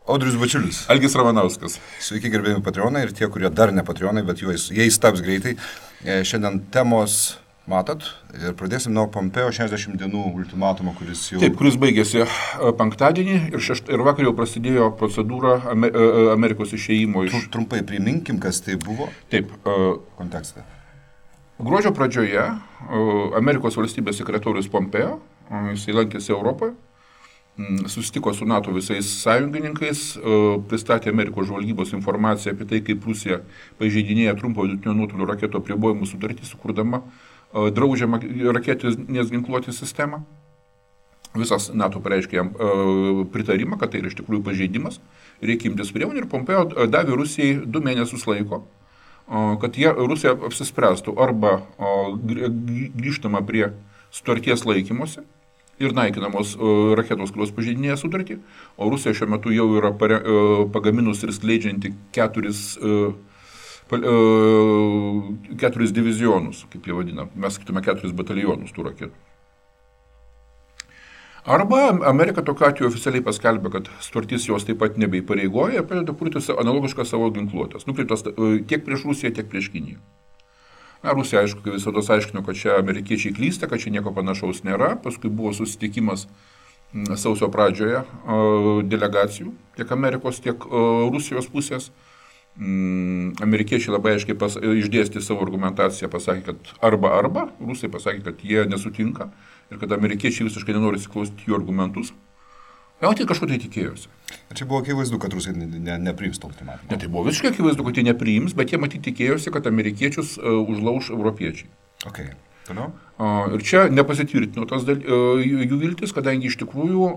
Audrius Bačiulis. Algis Ramanauskas. Sveiki, gerbėjami patreonai ir tie, kurie dar ne patreonai, bet jais taps greitai. Šiandien temos matot ir pradėsim nuo Pompeo 60 dienų ultimatumo, kuris jau... Taip, kuris baigėsi penktadienį ir vakar jau prasidėjo procedūra Amerikos išėjimo iš... Trumpai priminkim, kas tai buvo. Taip. Kontekstą. Gruodžio pradžioje Amerikos valstybės sekretorius Pompeo, jisai lankėsi Europoje, susitiko su NATO visais sąjungininkais, pristatė Amerikos žvalgybos informaciją apie tai, kaip Rusija pažeidinėja trumpo vidutinio nuotolio raketų apribojimų sutartį, sukurdama draudžiamą raketinės ginkluotės sistemą. Visas NATO pareiškė jam pritarimą, kad tai yra iš tikrųjų pažeidimas, reikia imtis priemonių ir Pompeo davė Rusijai 2 mėnesius laiko, kad Rusija apsispręstų arba grįžtama prie sutarties laikymosi ir naikinamos raketos, kurios pažeidinėja sutartį, o Rusija šiuo metu jau yra pagaminus ir skleidžianti 4 divizionus, kaip jie vadina, mes sakytume 4 batalionus tų raketų. Arba Amerika tokiu atveju oficialiai paskelbė, kad sutartis jos taip pat nebeįpareigoja ir pradeda kurti analogišką savo ginkluotės, nukreiptas tiek prieš Rusiją, tiek prieš Kiniją. Rusija, aišku, visada aiškino, kad čia amerikiečiai klysta, kad čia nieko panašaus nėra. Paskui buvo susitikimas sausio pradžioje delegacijų, tiek Amerikos, tiek Rusijos pusės. Amerikiečiai labai aiškiai išdėstė savo argumentaciją, pasakė, kad arba, Rusai pasakė, kad jie nesutinka ir kad amerikiečiai visiškai nenori įsiklausyti jų argumentus. Jau tai kažko tai tikėjosi. Čia buvo akivaizdu, kad Rusai nepriims to ultimatumą. Ne, tai buvo visiškai akivaizdu, kad jie nepriims, bet jie matyti tikėjosi, kad amerikiečius užlauš europiečiai. Okay. Toliau? Ir čia nepasitvirtino jų viltis, kadangi iš tikrųjų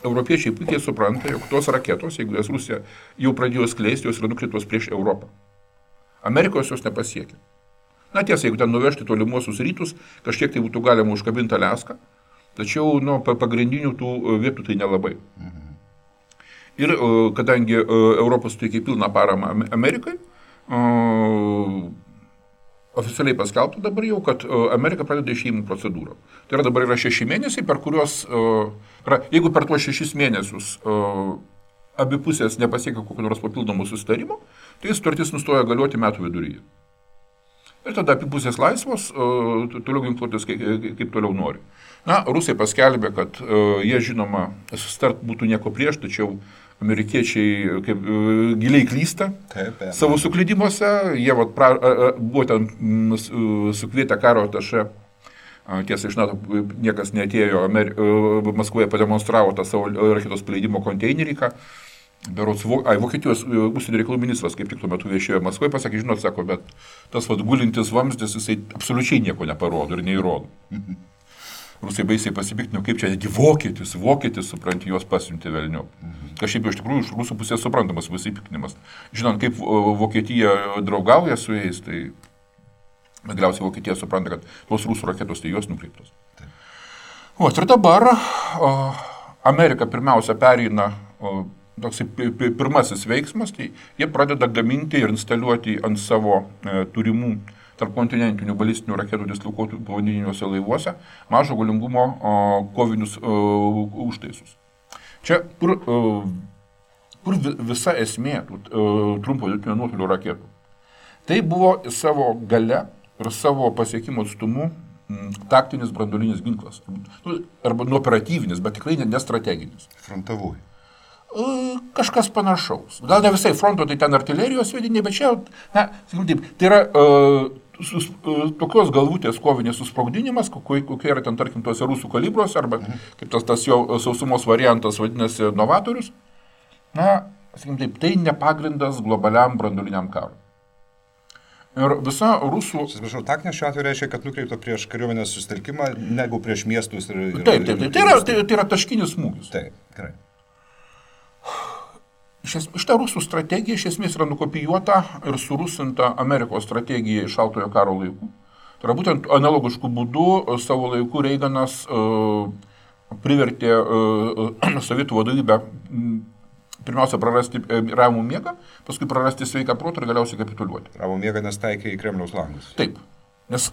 europiečiai puikiai supranta, jog tos raketos, jeigu jas Rusija jau pradėjo skleisti, jos yra nukreiptos prieš Europą. Amerikos jos nepasiekia. Na tiesa, jeigu ten nuvežti tolimuosius rytus, kažkiek tai būtų galima užkabinti Aliaską, tačiau pagrindinių tų vietų tai nelabai. Ir kadangi Europos teikia pilną paramą Amerikai, oficialiai paskelbta dabar jau, kad Amerika pradeda išėjimų procedūrą. Tai yra dabar yra 6 mėnesiai, per kuriuos, jeigu per tuos 6 mėnesius abi pusės nepasiekia kokio nors papildomų susitarimo, tai sutartis nustoja galioti metų viduryje. Ir tada abi pusės laisvos, toliau ginkluotis kaip toliau nori. Rusai paskelbė, kad jie žinoma susitart būtų nieko prieš, tačiau amerikiečiai giliai klysta savo suklydimuose. Jie buvo ten sukvietę karo atašė. Tiesa, iš NATO niekas neatėjo, Maskvoje pademonstravo tą savo raketos paleidimo konteinerį. Vokietijos užsienio reikalų ministras, kaip tik tuo metu viešėjo Maskvoje, pasakė, žinot, sako, bet tas gulintis vamzdis, jisai absoliučiai nieko neparodo ir neįrodo. Rusai baisiai pasipiktino, kaip čia negi vokietis, supranti, juos pasiuntė velniop. Kažkaip iš tikrųjų iš rusų pusės suprantamas pasipiktinimas. Žinant, kaip Vokietija draugauja su jais, tai galiausiai Vokietija supranta, kad tos rusų raketos tai juos nukreiptos. Ir dabar Amerika pirmiausia pereina, toks pirmasis veiksmas, tai jie pradeda gaminti ir instaliuoti ant savo turimų tarpkontinentinių balistinių raketų dislokuotų povandeniniuose laivuose mažo galingumo kovinius užtaisus. Čia, kur visa esmė trumpo vidutinio nuotolio raketų. Tai buvo savo gale ir savo pasiekimo atstumu taktinis branduolinis ginklas. Arba operatyvinis, bet tikrai nestrateginis. Frontavui. Kažkas panašaus. Gal ne visai fronto, tai ten artilerijos sviediniai, bet čia, tai yra tokios galvutės kovinės susprogdinimas, kokie yra ten, tarkim, tuose rusų kalibruose, arba kaip tas jo sausumos variantas vadinasi novatorius. Tai nepagrindas globaliam branduoliniam karui. Ir visa rusų... Atsiprašau, taktinė šiuo atveju reiškia, kad nukreipta prieš kariuomenės susitelkimą, negu prieš miestus ir... Taip. Tai yra taškinis smūgis. Taip, gerai. Šitą rusų strategija iš esmės yra nukopijuota ir surusinta Amerikos strategija iš šaltojo karo laikų. Tai yra būtent analogiškų būdų savo laikų Reiganas privertė sovietų vadovybę pirmiausia prarasti ramų miegą, paskui prarasti sveiką protą ir galiausiai kapituliuoti. Ramų miegą nes taikė į Kremliaus langus. Taip. Nes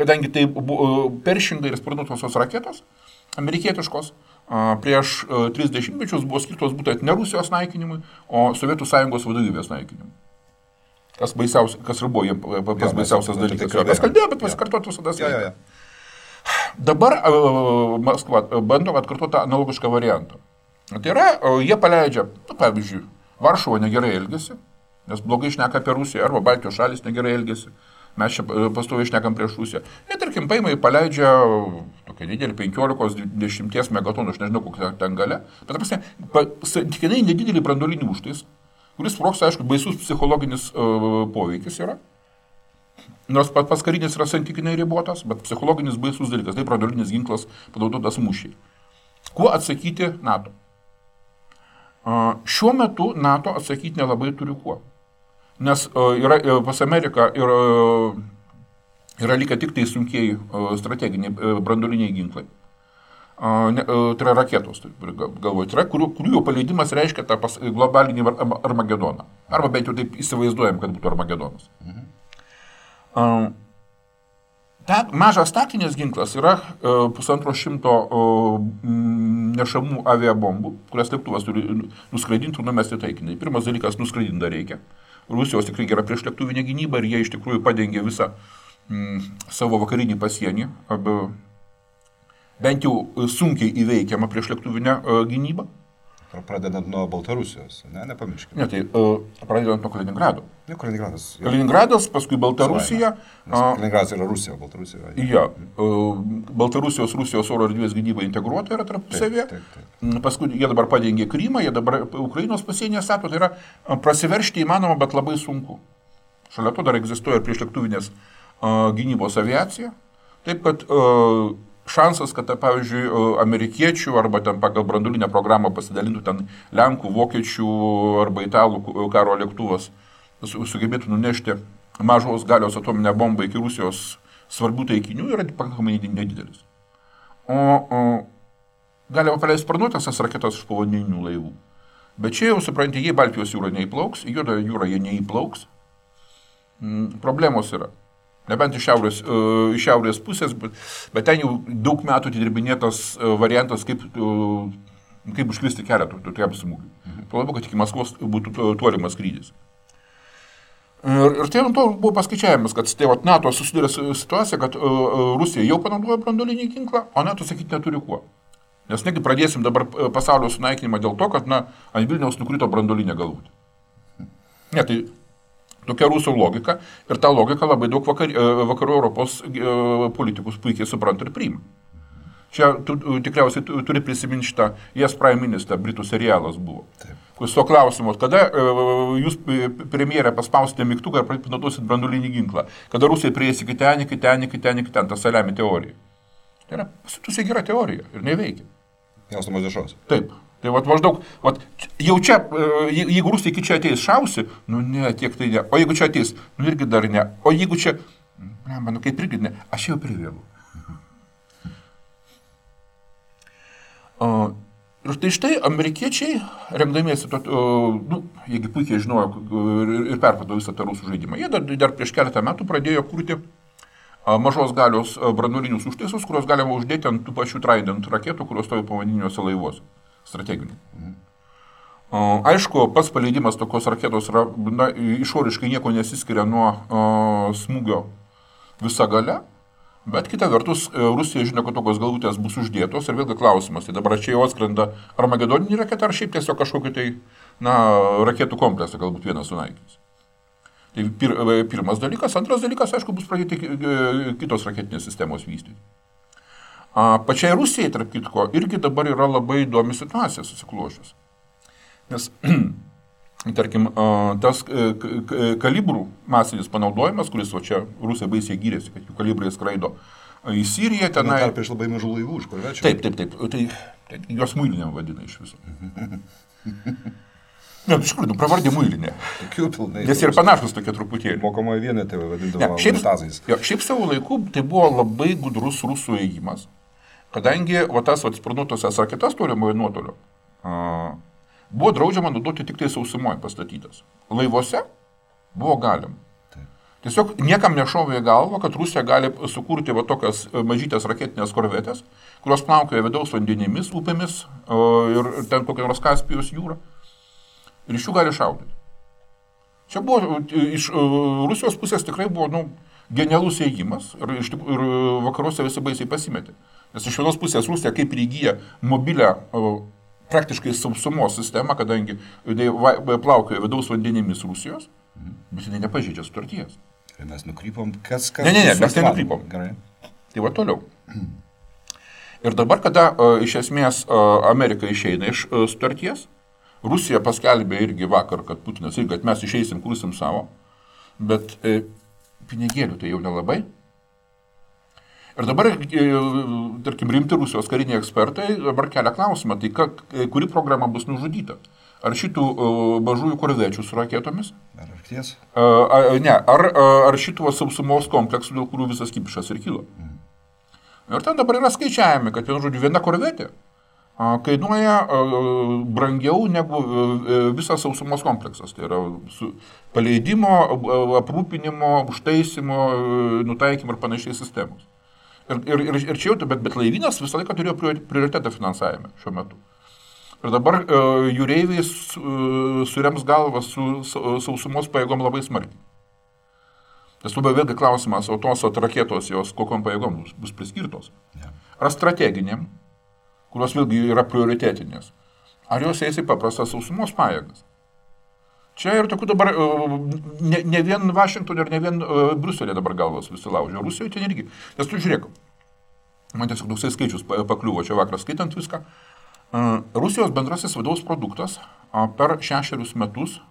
kadangi tai buvo Pershing ir sparnuotosios raketos, amerikietiškos, prieš 30 mečius buvo skirtos būtent ne Rusijos naikinimui, o Sovietų Sąjungos vadovybės naikinimui. Kas ir buvo jiems pats baisiausias dalykas. Kas kalbėjo, bet pasikartoti visada sveika. Dabar Maskva bando atkartoti analogišką variantą. Tai yra, jie paleidžia, pavyzdžiui, Varšuva negerai elgesi, nes blogai šneka apie Rusiją, arba Baltijos šalis negerai elgesi. Mes čia pastoviai šnekam prieš Rusiją. Ir tarkim, paima ir paleidžia tokia didelį 15-10 megatonų, aš nežinau, kokia ten galia, bet santykinai nedidelį branduolinį užtais, kuris sprogs, aišku, baisus psichologinis poveikis yra. Nors pats karinis yra santykinai ribotas, bet psichologinis baisus dalykas, tai branduolinis ginklas panaudotas mūšiai. Kuo atsakyti NATO? Šiuo metu NATO atsakyti nelabai turi kuo. Nes pas Ameriką yra likę tik tai sunkieji strateginiai branduoliniai ginklai. Tai yra raketos, galvoju, tai yra, kurių jau paleidimas reiškia tą globalinį Armagedoną. Arba bent jau taip įsivaizduojam, kad būtų Armagedonas. Mažas taktinis ginklas yra 150 nešamų aviabombų, kurias lėktuvas turi nuskraidinti ir numesti taikinį. Pirmas dalykas, nuskraidinti dar reikia. Rusijos tikrai gera priešlėktuvinė gynyba ir jie iš tikrųjų padengia visą savo vakarinį pasienį, bent jau sunkiai įveikiamą priešlėktuvinę gynybą. Pradedant nuo Baltarusijos, nepamirškime. Ne, tai pradedant nuo Kaliningrado. Kaliningradas, paskui Baltarusija. Kaliningradas yra Rusija, Baltarusija. Ja, Baltarusijos, Rusijos oro erdvės gynyba integruota yra tarpusavėje. Paskui jie dabar padengė Krymą, jie dabar Ukrainos pasienyje stato, tai yra prasiveržti įmanoma, bet labai sunku. Šalia to dar egzistuoja priešlėktuvinės gynybos aviacija. Taip, kad šansas, kad, pavyzdžiui, amerikiečių arba ten pagal branduolinę programą pasidalintų ten Lenkų, Vokiečių arba Italų karo lėktuvas sugebėtų nunešti mažos galios atominę bombą iki Rusijos svarbių taikinių yra pakankamai nedidelis. O galima paleisti sparnuotąsias raketas iš povandeninių laivų. Bet čia jau, suprantate, jei Baltijos jūra neįplauks, į Juodą jūrą jie neįplauks, problemos yra. Nebent iš šiaurės pusės, bet ten jau daug metų atidirbinėtas variantas, kaip užkristi kelią tokiam smūgiui. Tuo labiau, kad iki Maskvos būtų tolimas skrydis. Ir tai to buvo paskaičiavimas, kad NATO susidūrė situacija, kad Rusija jau panaudojo branduolinį ginklą, o NATO sakyti neturi kuo. Nes negi pradėsim dabar pasaulio sunaikinimą dėl to, kad ant Vilniaus nukrito branduolinė galvutė. Ne, tai tokia rusų logika ir tą logiką labai daug vakarų Europos politikus puikiai supranta ir priima. Čia tikriausiai turi prisiminti šitą Yes Prime Minister, Britų serialas buvo. Kuris to klausimos, kada jūs premjerė paspausite mygtuką ir panaudosit branduolinį ginklą, kada Rusija prieis iki ten, ta saliami teorija. Tai yra pasitusiai gera teorija ir neveikia. Jaustumas dešos. Taip. Tai maždaug, jau čia, jeigu Rusija iki čia ateis šausi, ne, tiek tai ne. O jeigu čia ateis, irgi dar ne. O jeigu čia, kaip irgi ne, aš jau privėlu. Ir štai amerikiečiai, remdamiesi, jeigu puikiai žinojo ir perprato visą tą rusų žaidimą, jie dar prieš keletą metų pradėjo kurti mažos galios branduolinius užtaisus, kurios galima uždėti ant tų pačių Trident raketų, kurios stovi povandeniniuose laivuose. Strateginių. Aišku, pats paleidimas tokios raketos yra, išoriškai nieko nesiskiria nuo smūgio visa galia, bet kita vertus, Rusija žino, kad tokios galvutės bus uždėtos ir vėlgi klausimas, tai dabar čia jau atskrenda Armagedoninį raketą ar šiaip tiesiog kažkokį tai, raketų kompleksą galbūt vienas sunaikins. Tai pirmas dalykas. Antras dalykas, aišku, bus pradėti kitos raketinės sistemos vystyti. Pačiai Rusijai, tarp kitko, irgi dabar yra labai įdomi situacija susiklošius. Nes, tarkim, tas kalibrų masinis panaudojimas, kuris čia Rusija baisiai gyrėsi, kad jų kalibrai skraido į Siriją, tenai... Tarp iš labai mažų laivų, iš kur večia? Taip. Tai juos muilinėm vadina iš viso. Ne, iš tikrųjų, pravardė muilinė. Nes ir panašus tokie truputėlį. Mokomoje vienetai vadindavo unitazais. Šiaip savo laiku tai buvo labai gudrus rusų ėjimas. Kadangi tas sparnuotosias raketas tolimojo nuotolio buvo draudžiama naudoti tik tai sausumoje pastatytas. Laivuose buvo galima. Tiesiog niekam nešovė į galvą, kad Rusija gali sukurti va tokias mažytės raketinės korvetės, kurios plaukioja vidaus vandenimis, upėmis ir ten kokia nors Kaspijos jūra. Ir iš jų gali šaudyti. Čia buvo, iš Rusijos pusės tikrai buvo, genialus ėjimas ir vakaruose visi baisiai pasimetė. Nes iš vienos pusės Rusija kaip ir įgyja mobilę praktiškai sausumos sistemą, kadangi plaukioja vidaus vandenimis Rusijos, bet jinai nepažeidžia sutarties. Ir mes nukrypom, kas... Ne, mes nenukrypom. Gerai. Tai va toliau. Ir dabar, kada iš esmės Amerika išeina iš sutarties, Rusija paskelbė irgi vakar, kad Putinas irgi, kad mes išeisim, kursim savo, bet pinigėlių tai jau nelabai. Ir dabar, tarkim, rimti Rusijos kariniai ekspertai dabar kelia klausimą, tai kuri programa bus nužudyta? Ar šitų mažųjų korvečių su raketomis? Ar arkties? Ne, ar šitų sausumos kompleksų, dėl kurių visas kipišas ir kilo. Ir ten dabar yra skaičiavimi, kad viena korvetė kainuoja brangiau negu visas sausumos kompleksas. Tai yra paleidimo, aprūpinimo, užtaisimo, nutaikymo ir panašiai sistemos. Ir čia jau, bet laivynas visą laiką turėjo prioritetą finansavime šiuo metu. Ir dabar jūreiviai surems galvą su sausumos pajėgom labai smarkiai. Tas labai vėlgi klausimas, o tos raketos jos kokiom pajėgom bus priskirtos. Ar strateginiam, kurios vėlgi yra prioritetinės. Ar jos eis į paprastas sausumos pajėgas. Čia ir tokių dabar, ne vien Vašingtonė ir ne vien Briuselė dabar galvos visi laužia. Rusijoje ten irgi. Nes tu žiūrėk, man tiesiog toksai skaičius pakliuvo čia vakarą skaitant viską. Rusijos bendrasis vidaus produktas per 6 metus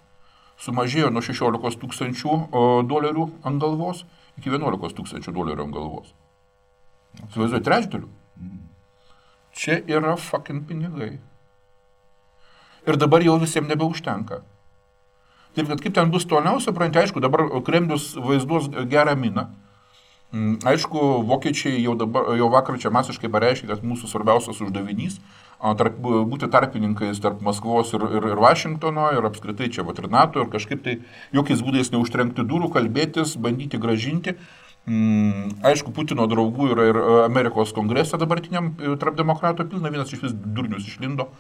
sumažėjo nuo 16 tūkstančių dolerių ant galvos iki 11 tūkstančių dolerių ant galvos. Suvaizduoju, trečdalių. Čia yra fucking pinigai. Ir dabar jau visiems nebeužtenka. Taip, kad kaip ten bus toliau, supranti, aišku, dabar Kremlius vaizduos gerą miną. Aišku, vokiečiai jau vakar čia masiškai pareiškė, kad mūsų svarbiausias uždavinys būti tarpininkais tarp Maskvos ir Vašingtono ir apskritai čia ir NATO ir kažkaip tai jokiais būdais neužtrenkti durų, kalbėtis, bandyti gražinti. Aišku, Putino draugų yra ir Amerikos kongrese dabartiniam tarp demokratų pilna, vienas iš vis durnius išlindo.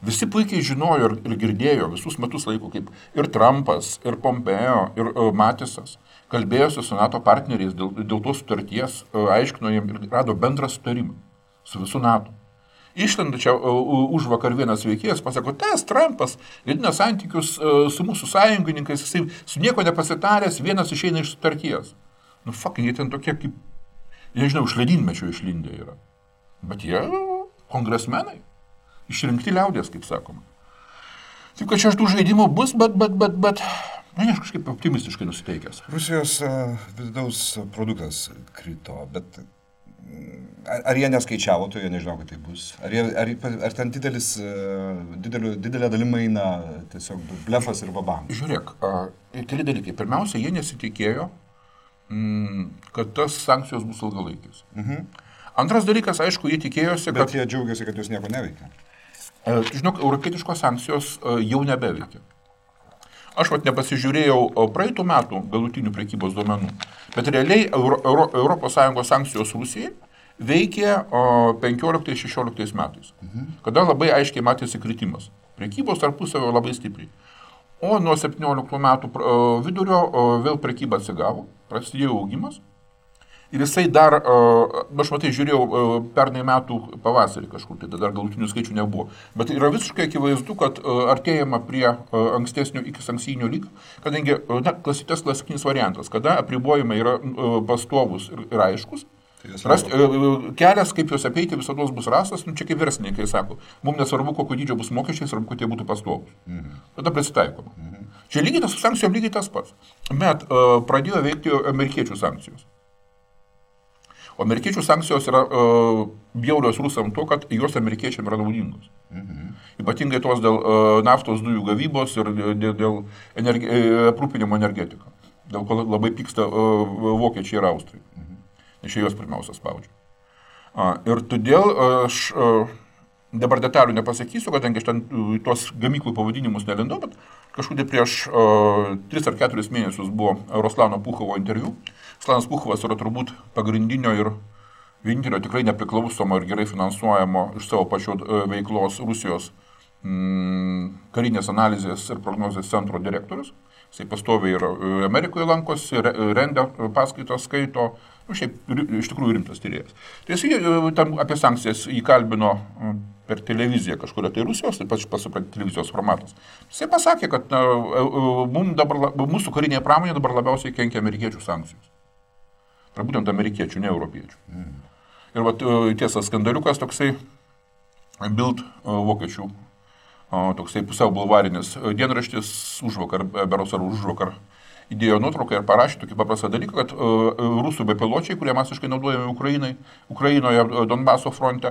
Visi puikiai žinojo ir girdėjo visus metus laiko, kaip ir Trumpas, ir Pompeo, ir Matisas kalbėjosi su NATO partneriais dėl tos sutarties, aiškino jiem ir rado bendrą sutarimą su visų NATO. Išlenda čia už vakar vienas veikėjas, pasako, tas Trumpas gadina santykius su mūsų sąjungininkais, jisai su nieko nepasitaręs, vienas išeina iš sutarties. Fucking, jie ten tokie kaip, nežinau, iš ledynmečio išlindę yra. Bet jie kongresmenai. Išrinkti liaudės, kaip sakoma. Taip, kad čia tų žaidimų bus, bet, aš kažkaip optimistiškai nusiteikęs. Rusijos vidaus produktas krito, bet ar jie neskaičiavo, tai jie nežinau, kad tai bus. Ar ten didelė dalima eina tiesiog blefas ir babam? Žiūrėk, keli dalykai. Pirmiausia, jie nesitikėjo, kad tas sankcijos bus ilgalaikis. Antras dalykas, aišku, jie tikėjosi, kad... Bet jie džiaugiasi, kad jos nieko neveikia. Žinok, europietiškos sankcijos jau nebeveikia. Aš nepasižiūrėjau praeitų metų galutinių prekybos duomenų, bet realiai ES sankcijos Rusijai veikė 15-16 metais, kada labai aiškiai matėsi kritimas. Prekybos tarpusavio labai stipriai. O nuo 17 metų vidurio vėl prekyba atsigavo, prasidėjo augimas. Ir jisai dar, aš matai, žiūrėjau pernai metų pavasarį kažkur, tai dar galutinių skaičių nebuvo. Bet yra visiškai akivaizdu, kad artėjama prie ankstesnio iki sankcijinio lygio, kadangi klasikinis variantas, kada apribojimai yra pastovus ir aiškus, kelias, kaip juos apeiti, visados bus rastas, čia kaip verslininkai sako, mums nesvarbu, kokio dydžio bus mokesčiai, svarbu, kad jie būtų pastovus. Tada prisitaikoma. Čia lygiai tas su sankcijom lygiai tas pats. Bet pradėjo veikti amerikiečių sankcijos. O amerikiečių sankcijos yra bjaurios rusam to, kad jos amerikiečiam yra naudingos. Ypatingai tos dėl naftos dujų gavybos ir dėl aprūpinimo energetika. Dėl ko labai pyksta vokiečiai ir austrai. Nes čia juos pirmiausia spaudžia. Ir todėl aš dabar detalių nepasakysiu, kadangi aš ten tuos gamyklų pavadinimus nelindau, bet kažkur prieš 3 ar 4 mėnesius buvo Ruslano Puchovo interviu. Ruslanas Puchovas yra turbūt pagrindinio ir vienintelio tikrai nepriklausomo ir gerai finansuojamo iš savo pačio veiklos Rusijos karinės analizės ir prognozės centro direktorius. Jisai pastoviai ir Amerikoje lankosi, rengia paskaitos, skaito, šiaip iš tikrųjų rimtas tyrėjas. Tai jisai tam apie sankcijas įkalbino per televiziją kažkuria tai Rusijos, taip pat pasupranti televizijos formatas. Jisai pasakė, kad mūsų karinėje pramonėje dabar labiausiai kenkia amerikiečių sankcijos. Tai būtent amerikiečių, ne europiečių. Ir vat, tiesa, skandaliukas toksai Bild vokiečių toksai pusiau bulvarinis dienraštis berods užvakar įdėjo nuotrauką ir parašė tokį paprastą dalyką, kad rusų bepiločiai, kurie masiškai naudojami Ukrainoje Donbaso fronte,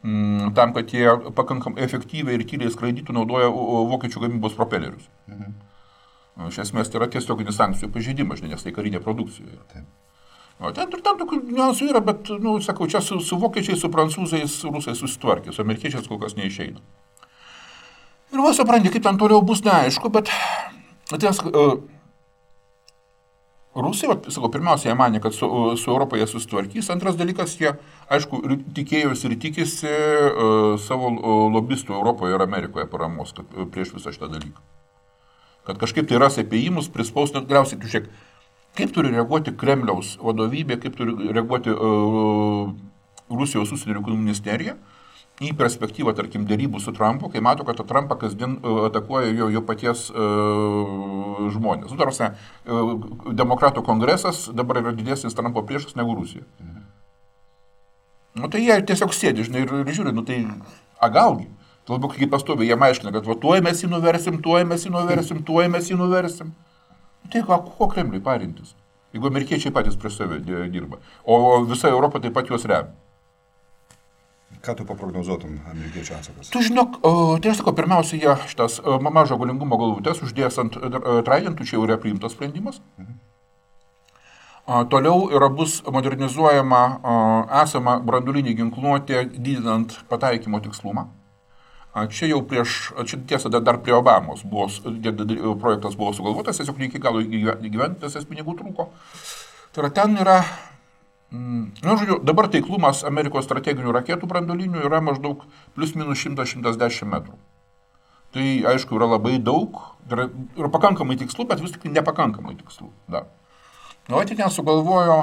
tam, kad jie pakankamai efektyviai ir tyliai skraidytų, naudoja vokiečių gamybos propelerius. Iš esmės tai yra tiesioginis sankcijų pažeidimas, nes tai karinė produkcija. Ten tokių niuansų yra, bet, sakau, čia su vokiečiais, su prancūzais, rusai susitvarkė, su amerikiečiais kol kas neišeina. Ir va, supranti, kaip ten toliau bus neaišku, bet Rusai, sakau, pirmiausia, jie manė, kad su Europoje susitvarkys. Antras dalykas, jie, aišku, tikėjosi ir tikisi savo lobistų Europoje ir Amerikoje paramos prieš visą šitą dalyką. Kad kažkaip tai ras apėjimus, prispaus, net galiausiai, žiūrėk, kaip turi reaguoti Kremliaus vadovybė, kaip turi reaguoti Rusijos užsienio reikalų ministerija į perspektyvą, tarkim, derybų su Trumpu, kai mato, kad Trumpą kasdien atakuoja jo paties žmonės. Tarsi, demokratų kongresas dabar yra didesnis Trumpo priešas negu Rusija. Tai jie tiesiog sėdi, žinai, ir žiūri, tai galgi. Labiau kaip pastoviai jie aiškina, kad tuoj mes jį nuversim, tuoj mes jį nuversim. Tai ko Kremliui parintis, jeigu amerikiečiai patys prieš save dirba, o visa Europa taip pat juos remia. Ką tu paprognozuotum amerikiečių atsakas? Tu žinok, tai aš sakau, pirmiausia, jie šitas mažo galingumo galvutės uždės ant Tridentų, čia jau yra priimtas sprendimas. Toliau bus modernizuojama esama branduolinė ginkluotė, didinant pataikymo tikslumą. Čia jau tiesa, dar prie Obamos projektas buvo sugalvotas, tiesiog ne iki galo įgyvendintas, pinigų trūko. Tai ten yra, žodžiu, dabar taiklumas Amerikos strateginių raketų branduolinių yra maždaug plius minus 100-110 metrų. Tai, aišku, yra labai daug, yra pakankamai tikslų, bet vis tik nepakankamai tikslų. Tai ten sugalvojo,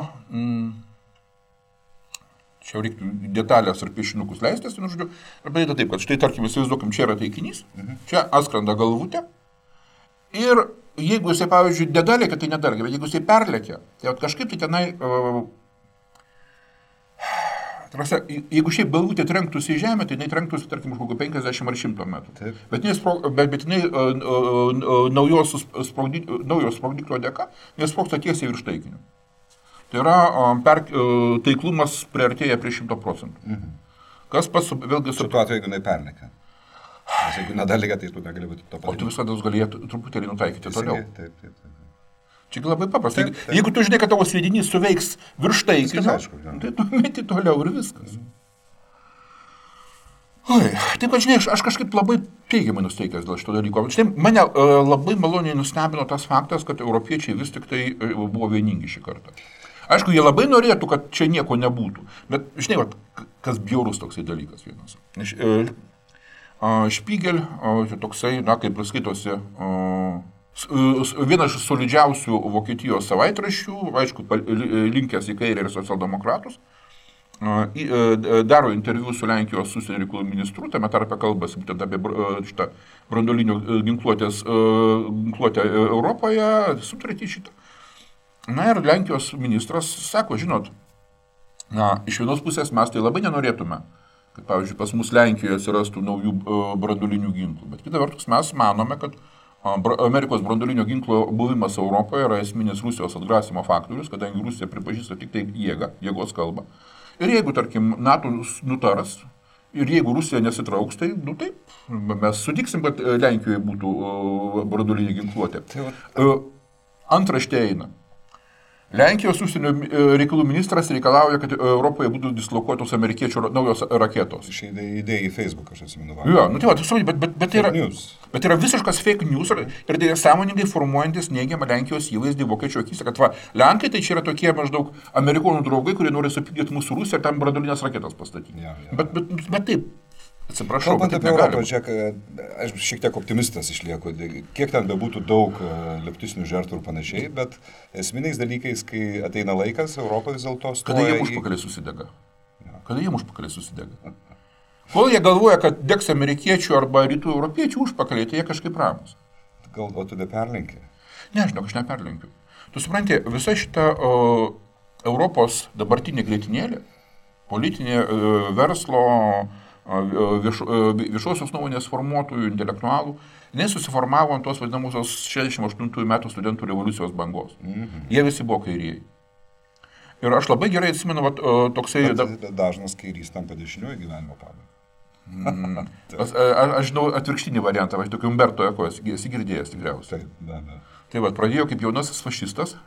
čia reiktų detalės ar piešinukus leistis, žodžiu, ir padaryta taip, kad štai, tarkim, įsivaizduokim, čia yra taikinys, čia atskrenda galvutė, ir jeigu jisai, pavyzdžiui, nedalėkia, tai nedalėkia, bet jeigu jisai perlėkia, tai kažkaip tai tenai, jeigu šiaip galvutė trenktųsi į žemę, tai jinai trenktųsi, tarkim, už 50 ar 100 metrų. Bet jinai naujo sprogdiklio dėka, nes sprogsta tiesiai virš taikinio. Tai yra, taiklumas priartėja prie 100%. Kas vėlgi... Su tuo atveju, jeigu jinai perlėkia. Nes jeigu nedalėkia, tai tu negali būti to padaryti. O tu visada galėtų truputėlį nutaikyti toliau. Taip. Čia labai paprasta. Jeigu tu žinai, kad tavo sviedinys suveiks virš taikinio, tai tu meti toliau ir viskas. Taip, kad žinai, aš kažkaip labai teigiamai nusteikęs dėl šito dalyko. Štai mane labai maloniai nustebino tas faktas, kad europiečiai vis tik tai buvo vieningi šį kartą. Aišku, jie labai norėtų, kad čia nieko nebūtų. Bet, žinai, kas bjaurus toksai dalykas vienas. Špygel, toksai, kaip skaitosi, vienas iš solidžiausių Vokietijos savaitraščių, aišku, linkęs į kairę ir socialdemokratus, daro interviu su Lenkijos užsienio reikalų ministru, tame tarpe kalbasi būtent apie šitą branduolinio ginkluotę Europoje, sutartį šitą. Ir Lenkijos ministras sako, žinot, iš vienos pusės mes tai labai nenorėtume, kad, pavyzdžiui, pas mus Lenkijoje atsirastų naujų branduolinių ginklų, bet kita vertus mes manome, kad Amerikos branduolinio ginklo buvimas Europoje yra esminis Rusijos atgrasimo faktorius, kadangi Rusija pripažįsta tik tai jėgos kalbą. Ir jeigu, tarkim, NATO nutaras, ir jeigu Rusija nesitrauks, tai, taip, mes sutiksim, kad Lenkijoje būtų branduolinė ginkluotė. Antraštė eina. Lenkijos užsienio reikalų ministras reikalauja, kad Europoje būtų dislokuotos amerikiečių naujos raketos. Išeidė idėją į Facebook, aš atsimenu. Jo, nu tai va, bet yra visiškas fake news ir tai sąmoningai formuojantis neigiamą Lenkijos įvaizdį vokiečių akise, kad va, Lenkai tai čia yra tokie maždaug amerikonų draugai, kurie nori supykdyti mūsų Rusiją ir tam branduolinės raketas pastatyti. Ja. Bet taip. Atsiprašau, kalbant apie Europą, čia, aš šiek tiek optimistas išlieku, kiek ten bebūtų daug leftistinių žertų ir panašiai, bet esminiais dalykais, kai ateina laikas, Europą vis dėlto stoja. Kada jie užpakaliai susidega? Kada jie užpakaliai susidega? Kol jie galvoja, kad degs amerikiečių arba rytų europiečių užpakaliai, tai jie kažkaip ramus. Gal tu neperlenki? Ne, žinok, aš neperlenkiu. Tu supranti, visa šita Europos dabartinė grėtinėlė, politinė verslo, viešosios nuomonės formuotojų, intelektualų, nesusiformavo ant tos vadinamosios 68 metų studentų revoliucijos bangos. Jie visi buvo kairieji. Ir aš labai gerai atsimenu, toksai... Bet dažnas kairys tampa dešiniuoju gyvenimo pabaigai. Aš žinau atvirkštinį variantą, aš tokį Umberto Eko esi girdėjęs tikriausiai. Tai pradėjo kaip jaunasis fašistas,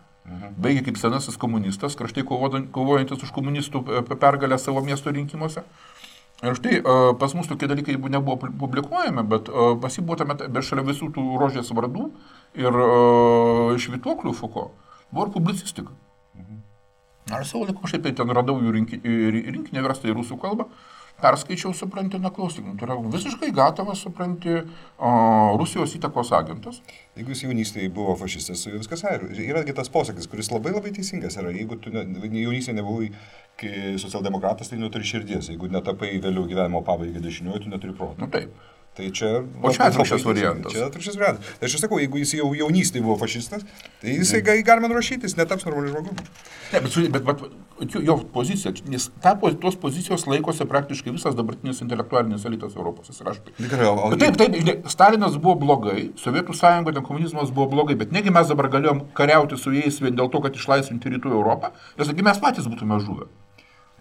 baigė kaip senasis komunistas, kraštai kovojantis už komunistų pergalę savo miesto rinkimuose. Ir štai pas mus tokie dalykai nebuvo publikuojami, bet pas jį buvo tame, bet šalia visų tų rožės vardų ir švytuoklių Foucault buvo ir publicistika. Ar savo laiku aš ten radau jų rinkinį verstą į rusų kalbą, perskaičiau, supranti, klausyk, tai yra visiškai gatavas, supranti, Rusijos įtakos agentas. Jeigu jis jaunystėje buvo fašistas, su viskas yra tas posakis, kuris labai teisingas yra. Jeigu tu jaunystėje nebuvai socialdemokratas, tai neturi širdies. Jeigu netapai vėliau gyvenimo pabaigą dešiniuoju, tu neturi proto. Nu taip. Tai čia... O čia atvirkščias variantas. Čia atvirkščias variantas. Tai aš sakau, jeigu jis jau jaunystėje buvo fašistas, tai jisai galima nurašyti, jis netaps normaliu žmogumi. Ne, bet jo pozicija, nes tos pozicijos laikosi praktiškai visas dabartinis intelektualinis elitas Europos. Taip, Stalinas buvo blogai, Sovietų sąjunga, komunizmas buvo blogai, bet negi mes dabar galėjom kariauti su jais vien dėl to, kad išlaisvinti rytų Europą, nes mes patys būtume žuvę.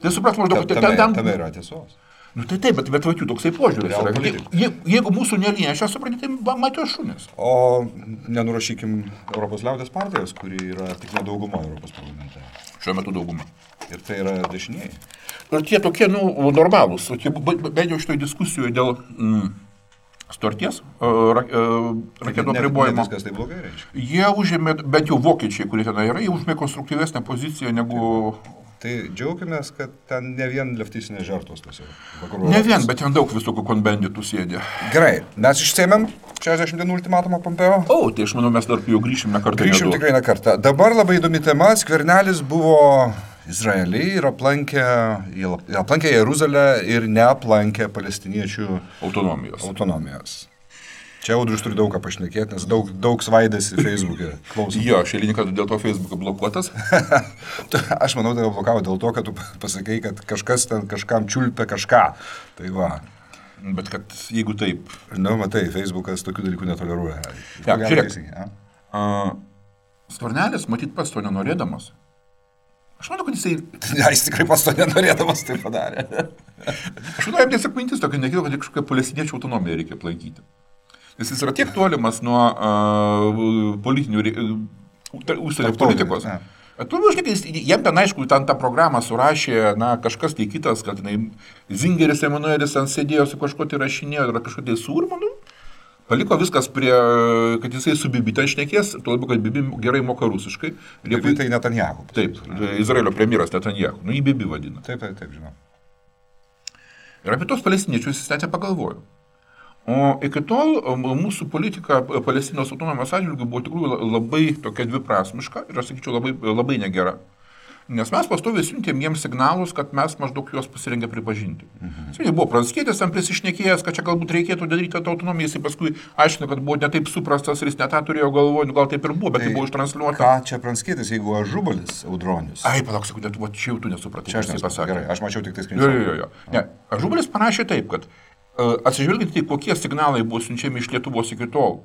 Tai supras maždaug, tame yra tiesos. Nu tai taip, bet jų toksai požiūris yra. Jeigu mūsų neliečia, suprantate, tai matėjo šunis. O nenurašykim Europos liaudės partijos, kuri yra tik nedauguma Europos parlamente. Šiuo metu dauguma. Ir tai yra dešinieji. Ir tie tokie, normalūs, bent jau šitoj diskusijoje dėl sutarties, raketų apribojimo. Viskas tai blogai reiškia. Jie užėmė, bent jau vokiečiai, kurie ten yra, jie užėmė konstruktyvesnę poziciją negu... Tai džiaukimės, kad ten ne vien leftistinės žertos tas yra. Ne vien, bet ten daug visokių konbenditų sėdė. Gerai, mes išsėmėm 60 dienų ultimatumą Pompeo. O, tai aš manau, mes dar jau grįšim ne kartą. Grįšim tikrai ne kartą. Dabar labai įdomi tema. Skvernelis buvo Izraelį ir aplankė Jeruzalę ir neaplankė palestiniečių autonomijos. Čia Audrius turi daug ką pašnekėti, nes daug svaidėsi Facebook'e. Jo, aš eilinį kartą dėl to Facebook'e blokuotas. Aš manau, tai blokavo dėl to, kad tu pasakai, kad kažkas ten kažkam čiulpia kažką. Tai va. Bet kad jeigu taip... Nu, matai, Facebook'as tokių dalykų netoleruoja. Ja, žiūrėk. Skvernelis, matyt, pats to nenorėdamas. Aš manau, kad jisai... Ja, jis tikrai pats to nenorėdamas tai padarė. Aš manau, jam tiesiog mintis tokia nekilo, kad kažkokią palestiniečių autonomiją reikia aplankyti. Nes jis yra tiek tolimas nuo politinių užsienio politikos. Jam ten, aišku, tą programą surašė kažkas tai kitas, kad Zingeris Emanuelis ten sėdėjo su kažko tai rašinėjo, yra kažko tai surmanų. Paliko viskas prie, kad jisai su Bibi ten šnekės, tuo labiau, kad Bibi gerai moka rusiškai. Bibi tai Netanjahu. Taip, Izraelio premjeras Netanjahu. Jį Bibi vadina. Taip, žinau. Ir apie tos palestiniečius jis net nepagalvojo. O iki tol mūsų politika Palestinos autonomijos atžvilgiu buvo tikrųjų labai tokia dviprasmiška ir, aš sakyčiau, labai negera. Nes mes pastoviai siuntėm jiems signalus, kad mes maždaug juos pasirengę pripažinti. Jis buvo Pranckietis, tam prisišnekėjęs, kad čia galbūt reikėtų daryti tą autonomiją, jis paskui aiškino, kad buvo netaip suprastas ir jis net tą turėjo galvoje, gal taip ir buvo, bet tai buvo ištransliuota. Ką čia Pranckietis, jeigu Ažubalis, Audronius? Ai, palauk, sekundę, čia jau tu nesupratai. Čia aš nesupratau. Gerai, aš mačiau tik tai skrinšotą. Jo. Ne, Ažubalis parašė taip, kad atsižvelgiant į kokie signalai buvo siunčiami iš Lietuvos iki tol.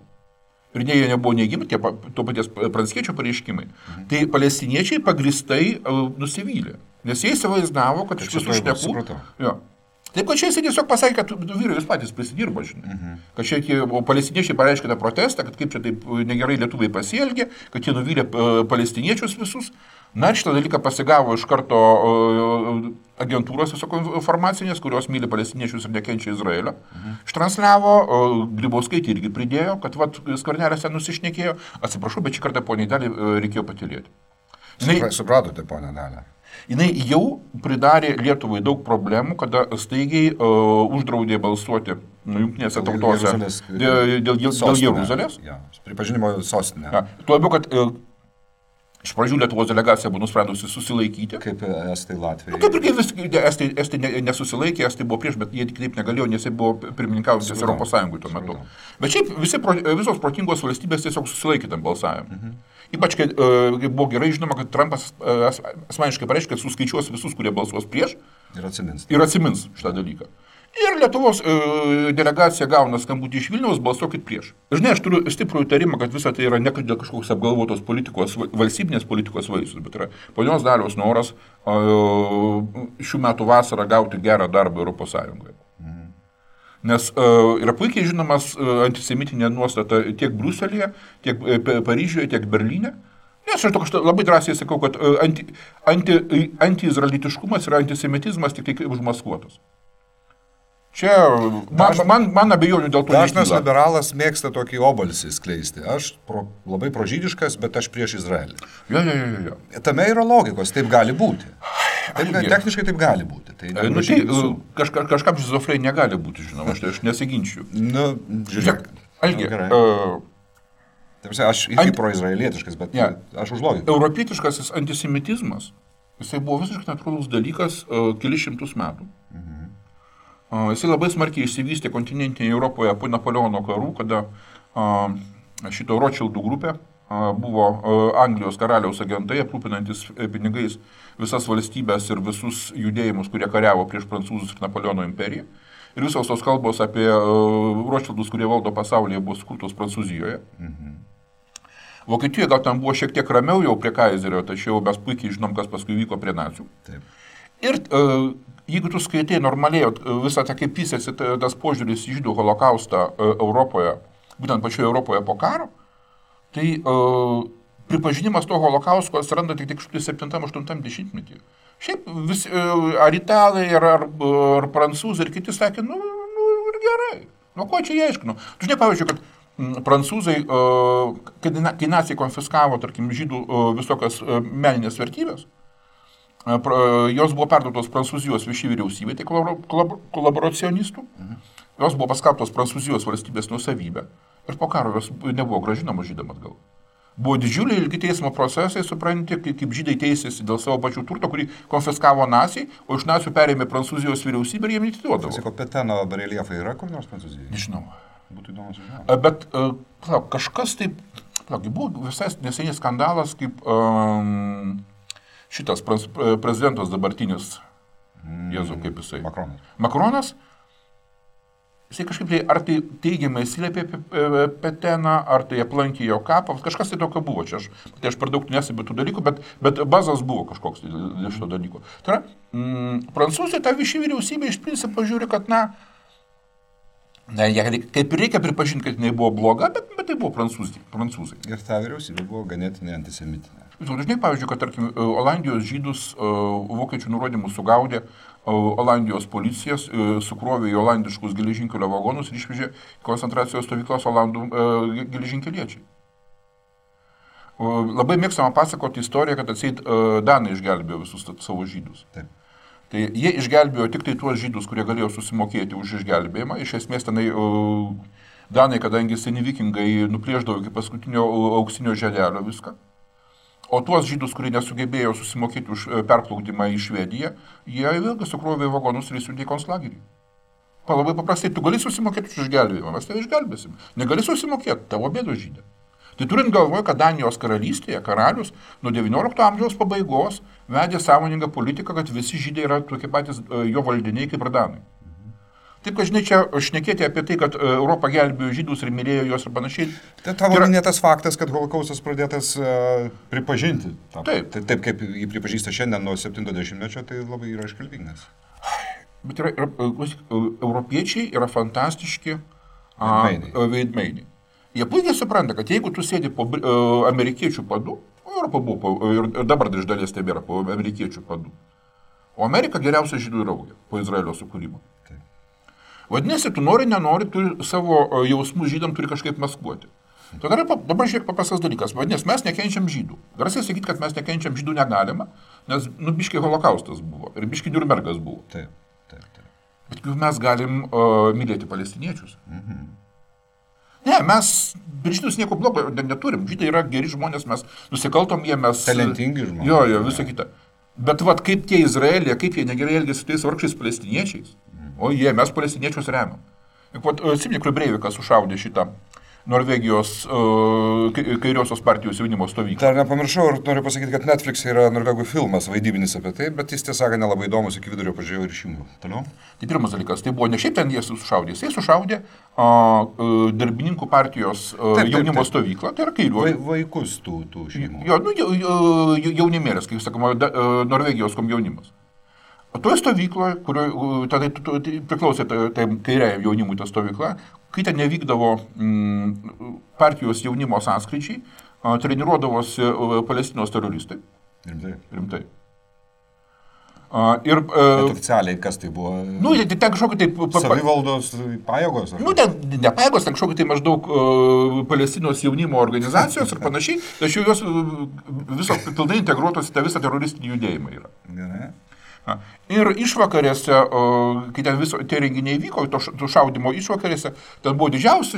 Ir jie nebuvo neigiami, tie to paties Pranckiečio pareiškimai. Tai palestiniečiai pagristai nusivylė. Nes jie įsivaizdavo, kad iš visų šnekų... Taip, kad čia jis tiesiog pasakė, kad vyrai jūs patys prisidirbo, žinai. Kad čia palestiniečiai pareiškė tą protestą, kad kaip čia taip negerai lietuviai pasielgė, kad jie nuvylė palestiniečius visus. Na ir šitą dalyką pasigavo iš karto agentūros informacinės, kurios myli palestiniečius ir nekenčia Izraelio. Ištransliavo, Grybauskaitė irgi pridėjo, kad Skvernelis ten nusišnekėjo. Atsiprašau, bet šį kartą poniai Daliai reikėjo patylėti. Supratote, ponia Dalia. Jinai jau pridarė Lietuvai daug problemų, kada staigiai uždraudė balsuoti jungtinėse tautose dėl Jeruzalės. Ja, pripažinimo sostinė. Ja, tuo labiau, kad iš pradžių Lietuvos delegacija buvo nusprendusi susilaikyti. Kaip estai Latvijai. Kaip ir estai nesusilaikė, estai buvo prieš, bet jie taip negalėjo, nes jie buvo pirmininkaujantis Europos Sąjungoje tuo metu. Bet šiaip visos protingos valstybės tiesiog susilaikė tam balsavimui. Ypač, kai buvo gerai žinoma, kad Trumpas asmeniškai pareiškė, kad suskaičiuos visus, kurie balsuos prieš ir atsimins šitą dalyką. Ir Lietuvos delegacija gauna skambutį iš Vilniaus, balsuokit prieš. Žinai, aš turiu stiprų įtarimą, kad visa tai yra ne dėl kažkoks apgalvotos politikos, valstybinės politikos vaisius, bet yra ponios Dalios noras šių metų vasarą gauti gerą darbą Europos Sąjungoje. Nes yra puikiai žinomas antisemitinė nuostata tiek Briuselyje, tiek Paryžiuje, tiek Berlyne. Nes aš labai drąsiai sakau, kad antiizraelitiškumas ir antisemitizmas tik tai užmaskuotas. Čia man abejonių dėl to nekyla. Dažnas liberalas mėgsta tokį obalsį skleisti. Aš labai prožydiškas, bet aš prieš Izraelį. Jo. Tame yra logikos, taip gali būti. Techniškai taip gali būti. Kažkam šizofrenija negali būti, žinoma, aš nesiginčiu. Žiūrėk. Aš irgi proizraelietiškas, bet aš už logiką. Europietiškasis antisemitizmas, jisai buvo visiškai natūralus dalykas kelis šimtus metų. Jisai labai smarkiai išsivystė kontinentinėje Europoje po Napoleono karų, kada šito Rothschildų grupė buvo Anglijos karaliaus agentai, aprūpinantis pinigais visas valstybės ir visus judėjimus, kurie kariavo prieš prancūzus ir Napoleono imperiją. Ir visos tos kalbos apie Rothschildus, kurie valdo pasaulyje, buvo skurtos Prancūzijoje. Vokietijoje gal tam buvo šiek tiek ramiau jau prie Kaizerio, tačiau mes puikiai žinom, kas paskui vyko prie nacių. Taip. Ir jeigu tu skaitai normaliai visą tą kaip vystėsi tas požiūris į žydų holokaustą Europoje, būtent pačioje Europoje po karo, tai pripažinimas to holokausto atsiranda tik 7-8 dešimtmetyje. Šiaip ar italai, ar prancūzai ir kiti sakė, ir gerai, ko čia jie aiškino. Tu žinai, pavyzdžiui, kad prancūzai, kai naciai konfiskavo, tarkim, žydų visokias meninės vertybės, jos buvo perduotos Prancūzijos viešai vyriausybė, tai kolaboracionistų, jos buvo paskelbtos Prancūzijos valstybės nuosavybė ir po karo jos nebuvo grąžinamos žydam atgal. Buvo didžiuliai ilgi teismo procesai, supranti, kaip žydai teisėsi dėl savo pačių turto, kurį konfiskavo naciai, o iš nacių perėmė Prancūzijos vyriausybė ir jiem neatiduodavo. Sako, Peteno bareljefai yra kur nors Prancūzijoje? Nežinau. Būtų įdomu sužinoti. Bet kažkas taip, buvo visai neseniai skandalas, kaip šitas prezidentas dabartinis, Jėzau, kaip jisai. Makronas. Jisai kažkaip tai, ar tai teigiamai atsiliepė apie Peteną, ar tai aplankė jo kapą, kažkas tai tokio buvo čia. Aš per daug nesebiu tų dalykų, bet bazas buvo kažkoks dėl šito dalyko. Tai yra, Prancūzija tą viešą vyriausybę iš principo žiūri, kad kaip ir reikia pripažinti, kad jinai buvo bloga, bet tai buvo prancūzai. Ir ta vyriausybė buvo ganėtinai antisemitinė. Žinai, pavyzdžiui, kad, tarkim, Olandijos žydus vokiečių nurodymus sugaudė Olandijos policijas, sukrovė į olandiškus geležinkelio vagonus ir išvežė koncentracijos stovyklas olandų geležinkeliečiai. Labai mėgstama pasakoti istoriją, kad atseit danai išgelbėjo visus savo žydus. Taip. Tai jie išgelbėjo tik tai tuos žydus, kurie galėjo susimokėti už išgelbėjimą. Iš esmės tenai danai, kadangi seni vikingai nuplėždavo iki paskutinio auksinio želelio viską. O tuos žydus, kurie nesugebėjo susimokėti už perplaukimą į Švediją, jie vėlgi sukrovė į vagonus ir įsiuntė į konclagerį. Labai paprastai, tu gali susimokėti už išgelbėjimą, mes tave išgelbėsim. Negali susimokėti, tavo bėdos žydė. Tai turint galvoje, kad Danijos karalystėje karalius nuo XIX amžiaus pabaigos vedė sąmoningą politiką, kad visi žydai yra tokie patys jo valdiniai kaip ir danai. Taip, kad žinai, čia šnekėti apie tai, kad Europą gelbėjo žydus ir mylėjo juos ir panašiai. Tai tavo minėtas faktas, kad holokaustas pradėtas pripažinti. Taip kaip jį pripažįsta šiandien nuo 70-mečio, tai labai yra iškalbingas. Bet europiečiai yra fantastiški veidmainiai. Jie puikiai supranta, kad jeigu tu sėdi po amerikiečių padu, Europa buvo ir dabar iš dalies tebėra po amerikiečių padu, o Amerika geriausia žydų draugė po Izraelio sukūrimo. Taip. Vadinasi, tu nori, nenori, tu savo jausmus žydam turi kažkaip maskuoti. Dabar žiūrėk paprastas dalykas. Vadinasi, mes nekenčiam žydų. Garsiai sakyti, kad mes nekenčiam žydų negalima, nes biškai holokaustas buvo ir biškai Niurnbergas buvo. Taip. Bet mes galim mylėti palestiniečius. Ne, mes žydus nieko blogo neturim. Žydai yra geri žmonės, mes nusikaltom jie, mes... Talentingi žmonės. Jo, visą kitą. Bet kaip tie Izraelija, kaip jie negerai elgėsi su tais vargšiais palestiniečiais, mes palestiniečius remiam. Atsimeni, kur Breivikas sušaudė šitą Norvegijos kairiosios partijos jaunimo stovyklą. Dar nepamiršau ir noriu pasakyti, kad Netflix yra norvegų filmas vaidybinis apie tai, bet jis tiesą sakant nelabai įdomus, iki vidurio pažiūrėjau ir išjungiau. Toliau? Tai pirmas dalykas, tai buvo ne šiaip ten jie sušaudė, jisai sušaudė darbininkų partijos jaunimo stovyklą, tai yra kairiųjų. Vaikus tų šeimų. Jaunimėlės, kaip sakoma, Norvegijos komjaunimas. O toje stovykloje, kurioje tada priklausė kairiai jaunimui ta stovykla, kai ten nevykdavo partijos jaunimo sąskryčiai, treniruodavosi Palestinos teroristai. Rimtai. Bet oficialiai kas tai buvo? Ten kažkokia taip... Savivaldos pajėgos? Ten ne pajėgos, ten kažkokia tai maždaug Palestinos jaunimo organizacijos ir panašiai, tačiau jos viso pilnai integruotos į tą visą teroristinį judėjimą yra. Gerai. Ir išvakarėse, kai ten tie renginiai vyko, to šaudimo išvakarėse, ten buvo didžiausi,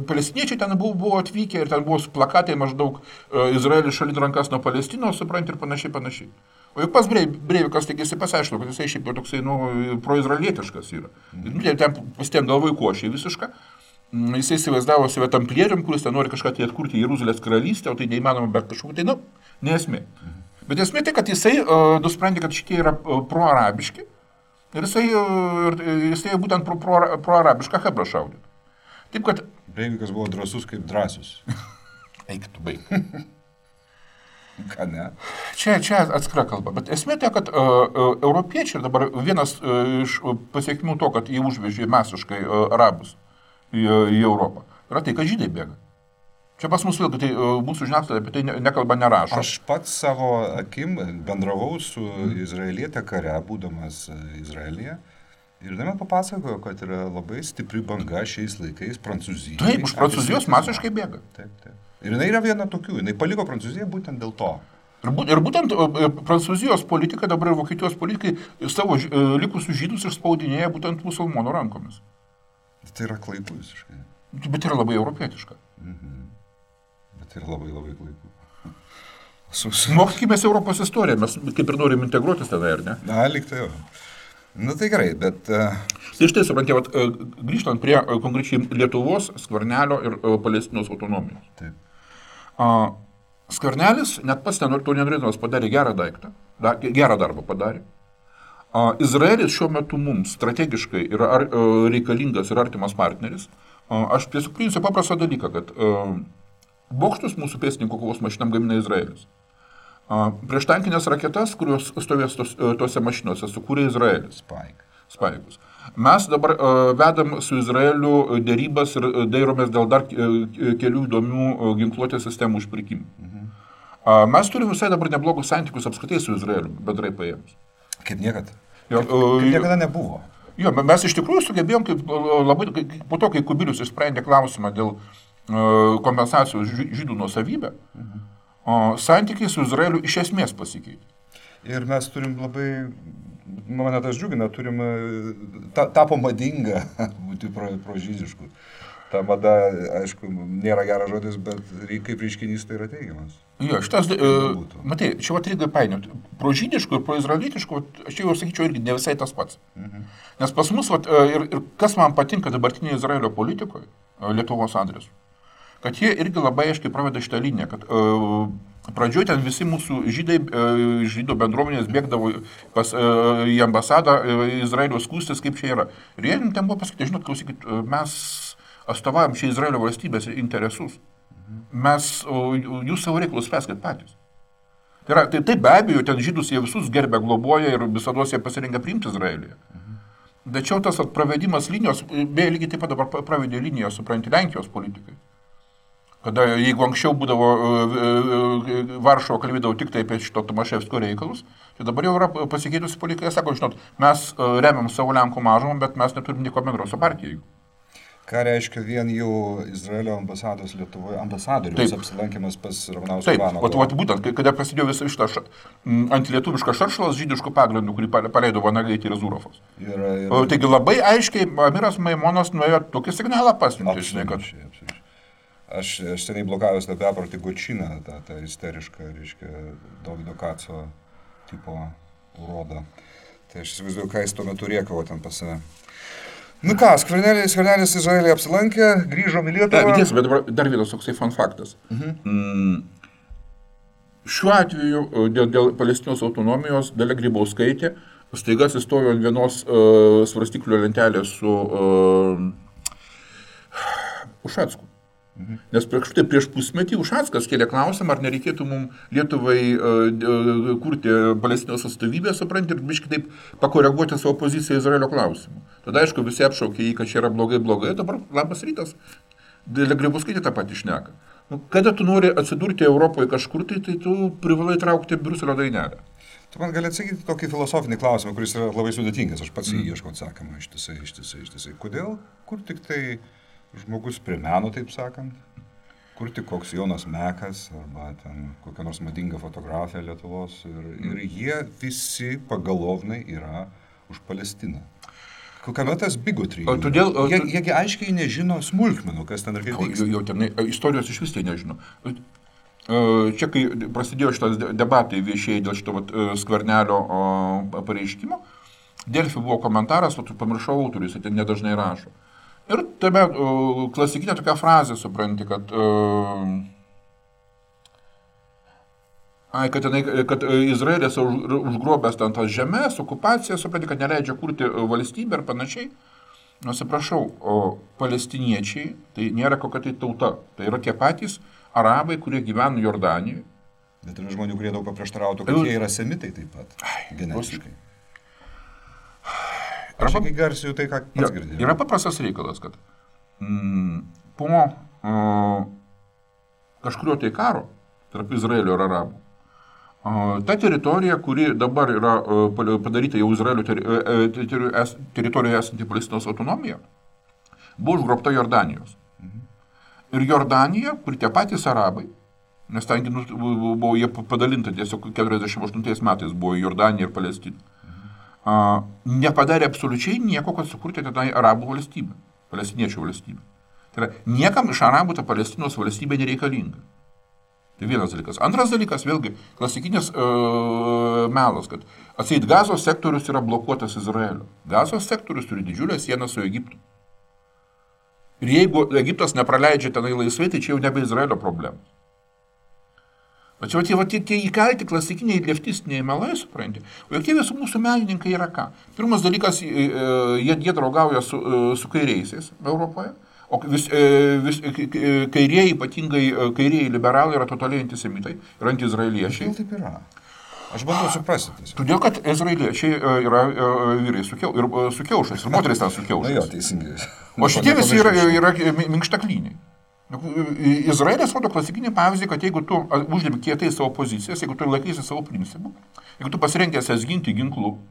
palestiniečiai ten buvo atvykę ir ten buvo plakatai maždaug Izraelis šalin rankas nuo Palestinos, supranti, ir panašiai. O juk pas Breivikas, taigi jisai pasiaiškino, kad jisai šiaip toksai, proizraelietiškas yra. Ten pasitien galvoj košė visišką. Jisai įsivaizdavo save tamplierium, kuris ten nori kažką tai atkurti Jeruzalės karalystę, o tai neįmanoma, bet kažkokia tai, nesmė. Bet esmė tai, kad jisai nusprendė, kad šitie yra proarabiški ir jisai būtent proarabišką hebrą šaudė. Taip, kad... Breivikas buvo drąsus kaip drąsus. Eik tu baig. Ką ne? Čia atskira kalba. Bet esmė tai, kad europiečiai ir dabar vienas iš pasiekmių to, kad jie užvežė masiškai arabus į Europą, yra tai, kad žydai bėga. Čia pas mus vėlgi, tai mūsų žiniasklaida apie tai nekalba, nerašo. Aš pats savo akim bendravau su izraelietė kare, būdamas Izraelyje. Ir man papasakojo, kad yra labai stipri banga šiais laikais Prancūzijai. Taip, už Prancūzijos masiškai bėga. Taip. Ir jinai yra viena tokių, jinai paliko Prancūziją būtent dėl to. Ir būtent Prancūzijos politika, dabar ir Vokietijos politikai savo likusius žydus išspaudinėja būtent musulmonų rankomis. Tai yra klaiku visiškai. Bet yra labai europietiška. Bet yra labai klaiku. Mokykimės Europos istoriją, mes kaip ir norim integruotis tada, ar ne? Na, lyg tai jau. Tai gerai, bet... Tai štai, suprantate, grįžtant prie konkrečiai Lietuvos, Skvernelio ir Palestinos autonomijos. Taip. Skvernelis, net pats to nenorėdamas, padarė gerą daiktą, gerą darbą padarė. Izraelis šiuo metu mums strategiškai yra reikalingas ir artimas partneris. Aš tiesiog priimsiu paprastą dalyką, kad bokštus mūsų pėstininkų kovos mašinam gamina Izraelis. Prieštankinės raketas, kurios stovės tose mašinose, sukūrė Izraelis. Spaigus. Mes dabar vedam su Izraeliu dėrybas ir dairomės dėl dar kelių įdomių ginkluotės sistemų užpirkimų. Mes turime visai dabar neblogus santykius apskritai su Izraeliu, bendrai paėmus. Kaip niekad. Kaip niekada nebuvo. Jo, mes iš tikrųjų sugebėjom, po to, kai Kubilius išsprendė klausimą dėl kompensacijos žydų nuosavybę, santykiai su Izraeliu iš esmės pasikeitė. Ir mes turim labai, mane tas džiugina, tapo madinga būti prožydišku. Ta mada, aišku, nėra geras žodis, bet kaip reiškinys tai yra teigiamas. Jo, matai, čia reikia painioti. Prožydišku ir proizraelietišku, aš jau sakyčiau, irgi ne visai tas pats. Nes pas mus, ir kas man patinka dabartinėje Izraelio politikoje, Lietuvos adresu, kad jie irgi labai aiškiai praveda šitą liniją, kad pradžioje ten visi mūsų žydų bendruomenės bėgdavo į ambasadą Izraelio skųstis, kaip čia yra. Ir jie ten buvo pasakyti, žinot, klausykit, mes atstovaujam čia Izraelio valstybės interesus. Jūs savo reikalus spręskit patys. Tai be abejo, ten žydus jie visus gerbė, globoja ir visada jie pasirengia priimti Izraelį. Tačiau tas pravedimas linijos, beje, lygiai taip pat dabar pravedė liniją, supranti, Lenkijos politikai. Kada jeigu anksčiau būdavo Varšuva kalbėdavo tik tai apie šito Tomaševskio reikalus, tai dabar jau yra pasikeitusi politika, sako, žinot, mes remiam savo Lenkų mažumą, bet mes neturim nieko bendro su partija. Ką reiškia vien jau Izraelio ambasados Lietuvoje, ambasadorius apsilankimas pas Ramanauską Ivanovo? Taip, būtent, kada prasidėjo visą šitą antilietuvišką šaršalas žydiškų pagrindų, kurį paleido Vanagaitė ir Zurofas. Taigi labai aiškiai Amiras Maimonas nuėjo tokį signalą pasiuntė. Absoliučiai. Aš seniai blokavęs tą beprotį Gočiną, tą isterišką, reiškia, Dovydo Kaco tipo urodą. Tai aš įsivaizduoju, ką jis tuo metu rėkavo ten pas save. Nu ką, Skvernelis Izraelį apsilankė, grįžom į Lietuvą. Bet dar vienas toksai fun faktas. Šiuo atveju dėl Palestinos autonomijos Dalia Grybauskaitė staiga atsistojo ant vienos svarstyklių lentelės su Ušacku. Nes prieš pusmetį Ušackas kėlė klausimą, ar nereikėtų mums Lietuvai kurti Palestinos atstovybę, supranti, ir biškai taip pakoreguoti savo poziciją Izraelio klausimu. Tada, aišku, visi apšaukė jį, kad čia yra blogai, dabar labas rytas, Dalia Grybauskaitė tą patį šneka. Kada tu nori atsidurti Europoje kažkur, tai tu privalai traukti Briuselio dainelę. Tu man gali atsakyti tokį filosofinį klausimą, kuris yra labai sudėtingas, aš pats jį ieškau atsakymą ištisai. Kodėl, kur tik tai žmogus prie meno, taip sakant, kur tik koks Jonas Mekas arba ten kokia nors madinga fotografija Lietuvos ir jie visi pagalovnai yra už Palestiną. Kokiame tas bigotry? Jiegi aiškiai nežino smulkmenų, kas ten ir kaip vyksta. Jau ten istorijos iš vis tai nežino. Čia, kai prasidėjo šitas debatai viešieji dėl šito Skvernelio pareiškimo, Delfi buvo komentaras, o tu pamiršau autorius, ten nedažnai rašo. Ir tame klasikinė tokia frazė, supranti, kad Izraelis užgrobęs ten tas žemės, okupaciją, supranti, kad neleidžia kurti valstybę ir panašiai. Nusiprašau, o palestiniečiai tai nėra kokia tai tauta. Tai yra tie patys arabai, kurie gyvena Jordanijoje. Bet yra žmonių, kurie daug paprieštarautų, kad jie yra semitai taip pat, genetiškai. Aš iki garsiu tai, ką pats girdėjau. Yra paprastas reikalas, kad po kažkurio tai karo tarp Izraelio ir arabų, ta teritorija, kuri dabar yra padaryta jau Izraelio teritorijoje esanti Palestinos autonomija, buvo užgrobta Jordanijos. Ir Jordanija, kur tie patys arabai, nes ten buvo jie padalinta tiesiog 48 metais buvo Jordanija ir Palestina, nepadarė absoliučiai nieko, kad sukurti tenai arabų valstybę, palestiniečių valstybę. Tai yra, niekam iš arabų ta Palestinos valstybė nereikalinga. Tai vienas dalykas. Antras dalykas, vėlgi, klasikinis melas, kad atseit Gazos sektorius yra blokuotas Izraelio. Gazos sektorius turi didžiulę sieną su Egiptu. Ir jeigu Egiptas nepraleidžia tenai laisvai, tai čia jau nebe Izraelio problema. Tačiau tie įkalti klasikiniai leftistiniai melai, supranti, o jokie visų mūsų menininkai yra ką? Pirmas dalykas, jie draugauja su kairiaisiais Europoje, o kairieji, ypatingai kairieji liberalai yra totaliai antisemitai ir antiizraeliečiai. Kodėl taip yra? Aš bandau suprasti. Todėl, kad izraeliečiai yra vyrai su kiaušais ir moteris ten su kiaušais. Na jo, teisingai. O šitie visi yra minkštaklyniai. Izraelis rodo klasikinį pavyzdį, kad jeigu tu uždėmi kietai savo pozicijas, jeigu tu laikysi savo principų, jeigu tu pasirengęs ginti ginklu,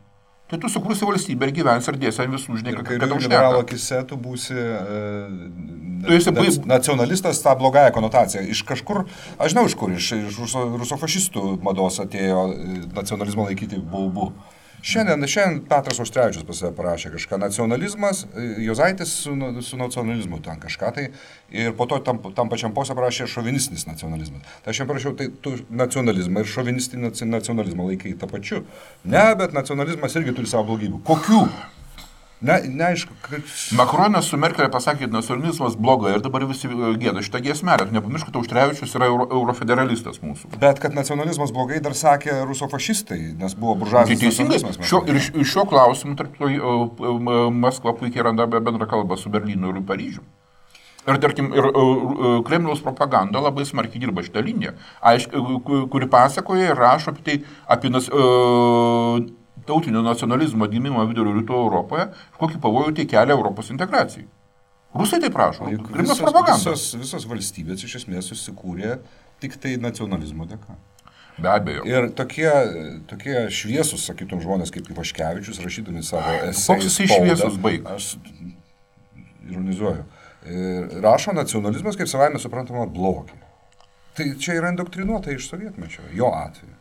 tai tu sukursi valstybę ir gyvensi ir dėsi ant visų, žinai, kad tau liberalo akise tu būsi nacionalistas, tą blogąją konotaciją. Iš kažkur, aš žinau iš kur, iš rusofašistų mados atėjo nacionalizmo laikyti baubu. Šiandien Petras Auštrevičius pas save parašė kažką, nacionalizmas, Juozaitis su nacionalizmu ten kažką tai, ir po to tam pačiam posė parašė šovinistinis nacionalizmas. Tai aš jam parašiau, tai tu nacionalizmą ir šovinistinį nacionalizmą laikai tą pačiu. Ne, bet nacionalizmas irgi turi savo blogybių. Kokių? Neaišku. Makronas su Merkelė pasakė, kad nacionalizmas blogai ir dabar visi gėda šitą giesmelę. Nepamiršk, kad Auštrevičius yra eurofederalistas mūsų. Bet kad nacionalizmas blogai dar sakė rusofašistai, nes buvo buržuazinis nacionalizmas. Ir šiuo klausimu, tarp to, Maskva puikiai randa bendrą kalbą su Berlynu ir Paryžiu. Ir, tarkim, Kremliaus propaganda labai smarkiai dirba šitą liniją, kuri pasakoja ir rašo apie tai, apie tautinio nacionalizmo gimimą vidurio rytų Europoje, kokį pavojų tai kelia Europos integracijai. Rusai taip rašo. Kremliaus propaganda. Visos valstybės iš esmės susikūrė tik tai nacionalizmo dėka. Be abejo. Ir tokie šviesus, sakytum, žmonės kaip Ivaškevičius, rašydami savo esėjus. Koks jisai šviesus baig? Aš ironizuoju. Rašo nacionalizmas kaip savaime suprantama blogį. Tai čia yra indoktrinuota iš sovietmečio, jo atveju.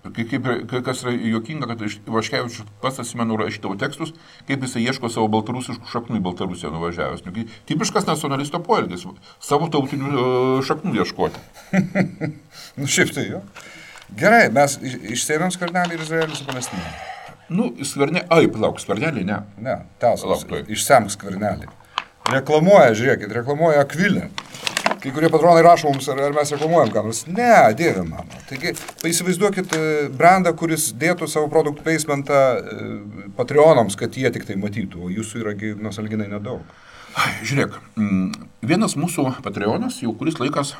Kas yra juokinga, kad Ivaškevičius pats atsimenu rašydavo tekstus, kaip jisai ieško savo baltarusiškų šaknų į Baltarusiją nuvažiavęs. Tipiškas nacionalisto poelgis, savo tautinių šaknų ieškoti. Šiaip tai jo. Gerai, mes išsėmėm Skvernelį ir Izraelį su Palestina. Skvernelį, ne. Ne, tęsas, išsemk Skvernelį. Reklamuoja Akvilę. Kai kurie patronai rašo mums, ar mes reklamuojam ką nors. Ne, dieve mano. Taigi, įsivaizduokit brandą, kuris dėtų savo produktų placementą Patreonams, kad jie tik tai matytų, o jūsų yra nusalginai nedaug. Žiūrėk, vienas mūsų Patreonas jau kuris laikas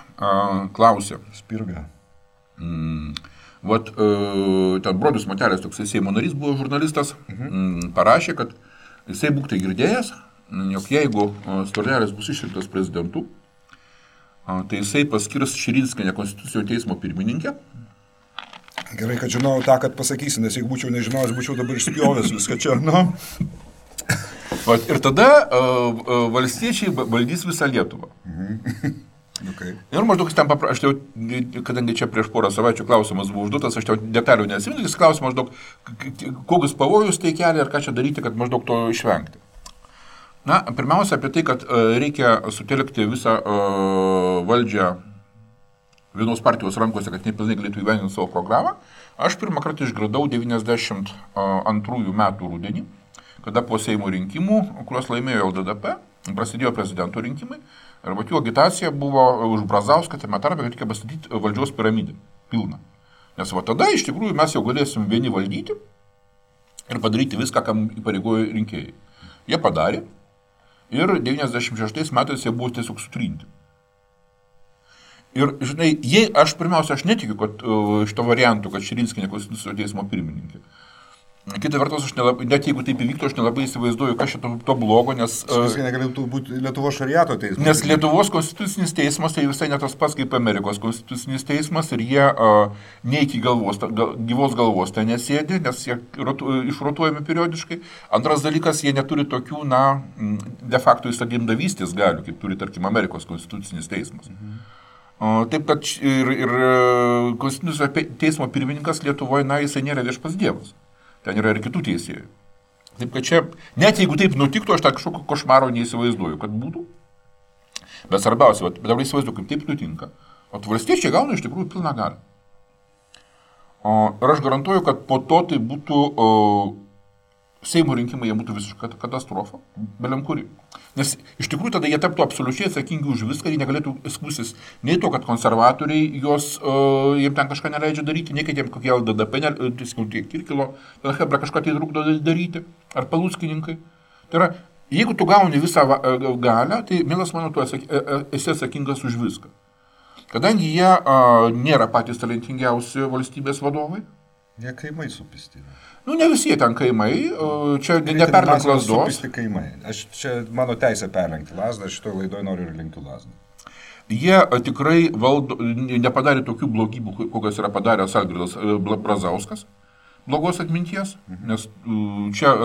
klausė. Spirga. Ten Bronius Matelis, toks Seimo narys, buvo žurnalistas, parašė, kad jisai būk tai girdėjęs, jog jeigu Skvernelis bus išrinktas prezidentu, tai jisai paskirs Širinskienę Konstitucinio teismo pirmininkę. Gerai, kad žinau tą, kad pasakysi, nes jeigu būčiau nežinojęs, būčiau dabar išspjovęs viską čia, Ir tada valstiečiai valdys visą Lietuvą. Okay. Ir maždaug jis ten aš jau, kadangi čia prieš porą savaičių klausimas buvo užduotas, aš jau detalių neatsimenu, jis klausė maždaug, kokius pavojus tai kelia ir ką čia daryti, kad maždaug to išvengti. Pirmiausia apie tai, kad reikia sutelkti visą valdžią vienos partijos rankose, kad nepilnai galėtų įgyvendinti savo programą. Aš pirmą kartą išgirdau 92 metų rudenį, kada po Seimo rinkimų, kuriuos laimėjo LDDP, prasidėjo prezidento rinkimai, ir jų agitacija buvo už Brazauską, tame tarpe, kad reikia pastatyti valdžios piramidę pilną. Nes tada iš tikrųjų mes jau galėsim vieni valdyti ir padaryti viską, kam įpareigojo rinkėjai. Jie padarė ir 96 metais jie buvo tiesiog sutrinti. Ir, žinai, aš netikiu, kad šito variantų, kad Širinskienė Konstitucinio teismo pirmininkė. Kita vertus, net jeigu taip įvyktų, aš nelabai įsivaizduoju, kas šito to blogo, nes... Viskai negalėtų būti Lietuvos šariato teismas. Nes Lietuvos konstitucinis teismas tai visai ne tas pats kaip Amerikos konstitucinis teismas ir jie ne iki gyvos galvos ten nesėdi, nes jie išrotuojami periodiškai. Antras dalykas, jie neturi tokių, de facto įstatymdavystės galių, kaip turi, tarkim, Amerikos konstitucinis teismas. Taip, kad ir konstitucinio teismo pirmininkas Lietuvoje, jisai nėra viešpas dievas. Ten yra ir kitų teisėjų. Taip, kad čia, net jeigu taip nutiktų, aš tą kažkokio košmaro neįsivaizduoju, kad būtų. Bet svarbiausia, dabar įsivaizduoju, kaip taip nutinka. O valstiečiai gauna iš tikrųjų pilną galią. Ir aš garantuoju, kad po to tai būtų Seimo rinkimai, jie būtų visiška katastrofa, beliam kuri. Nes iš tikrųjų tada jie taptų absoliučiai atsakingi už viską ir negalėtų skųstis nei to, kad konservatoriai jiems ten kažką neleidžia daryti, nei kad jiems kokie LDDP, Kirkilo, Hebra kažką tai trukdo daryti, ar Paluckininkai. Tai yra, jeigu tu gauni visą galią, tai, mielas mano, tu esi atsakingas už viską. Kadangi jie nėra patys talentingiausi valstybės vadovai. Jie kaimai supisti. Ne visi jie ten kaimai, čia neperlenk lasdos. Supisti kaimai. Čia mano teisė perlenkti lasdą, aš šitoje laidoje noriu ir lenkti lasdą. Jie tikrai nepadarė tokių blogybių, kokios yra padaręs Algirdas Brazauskas, blogos atminties, nes čia...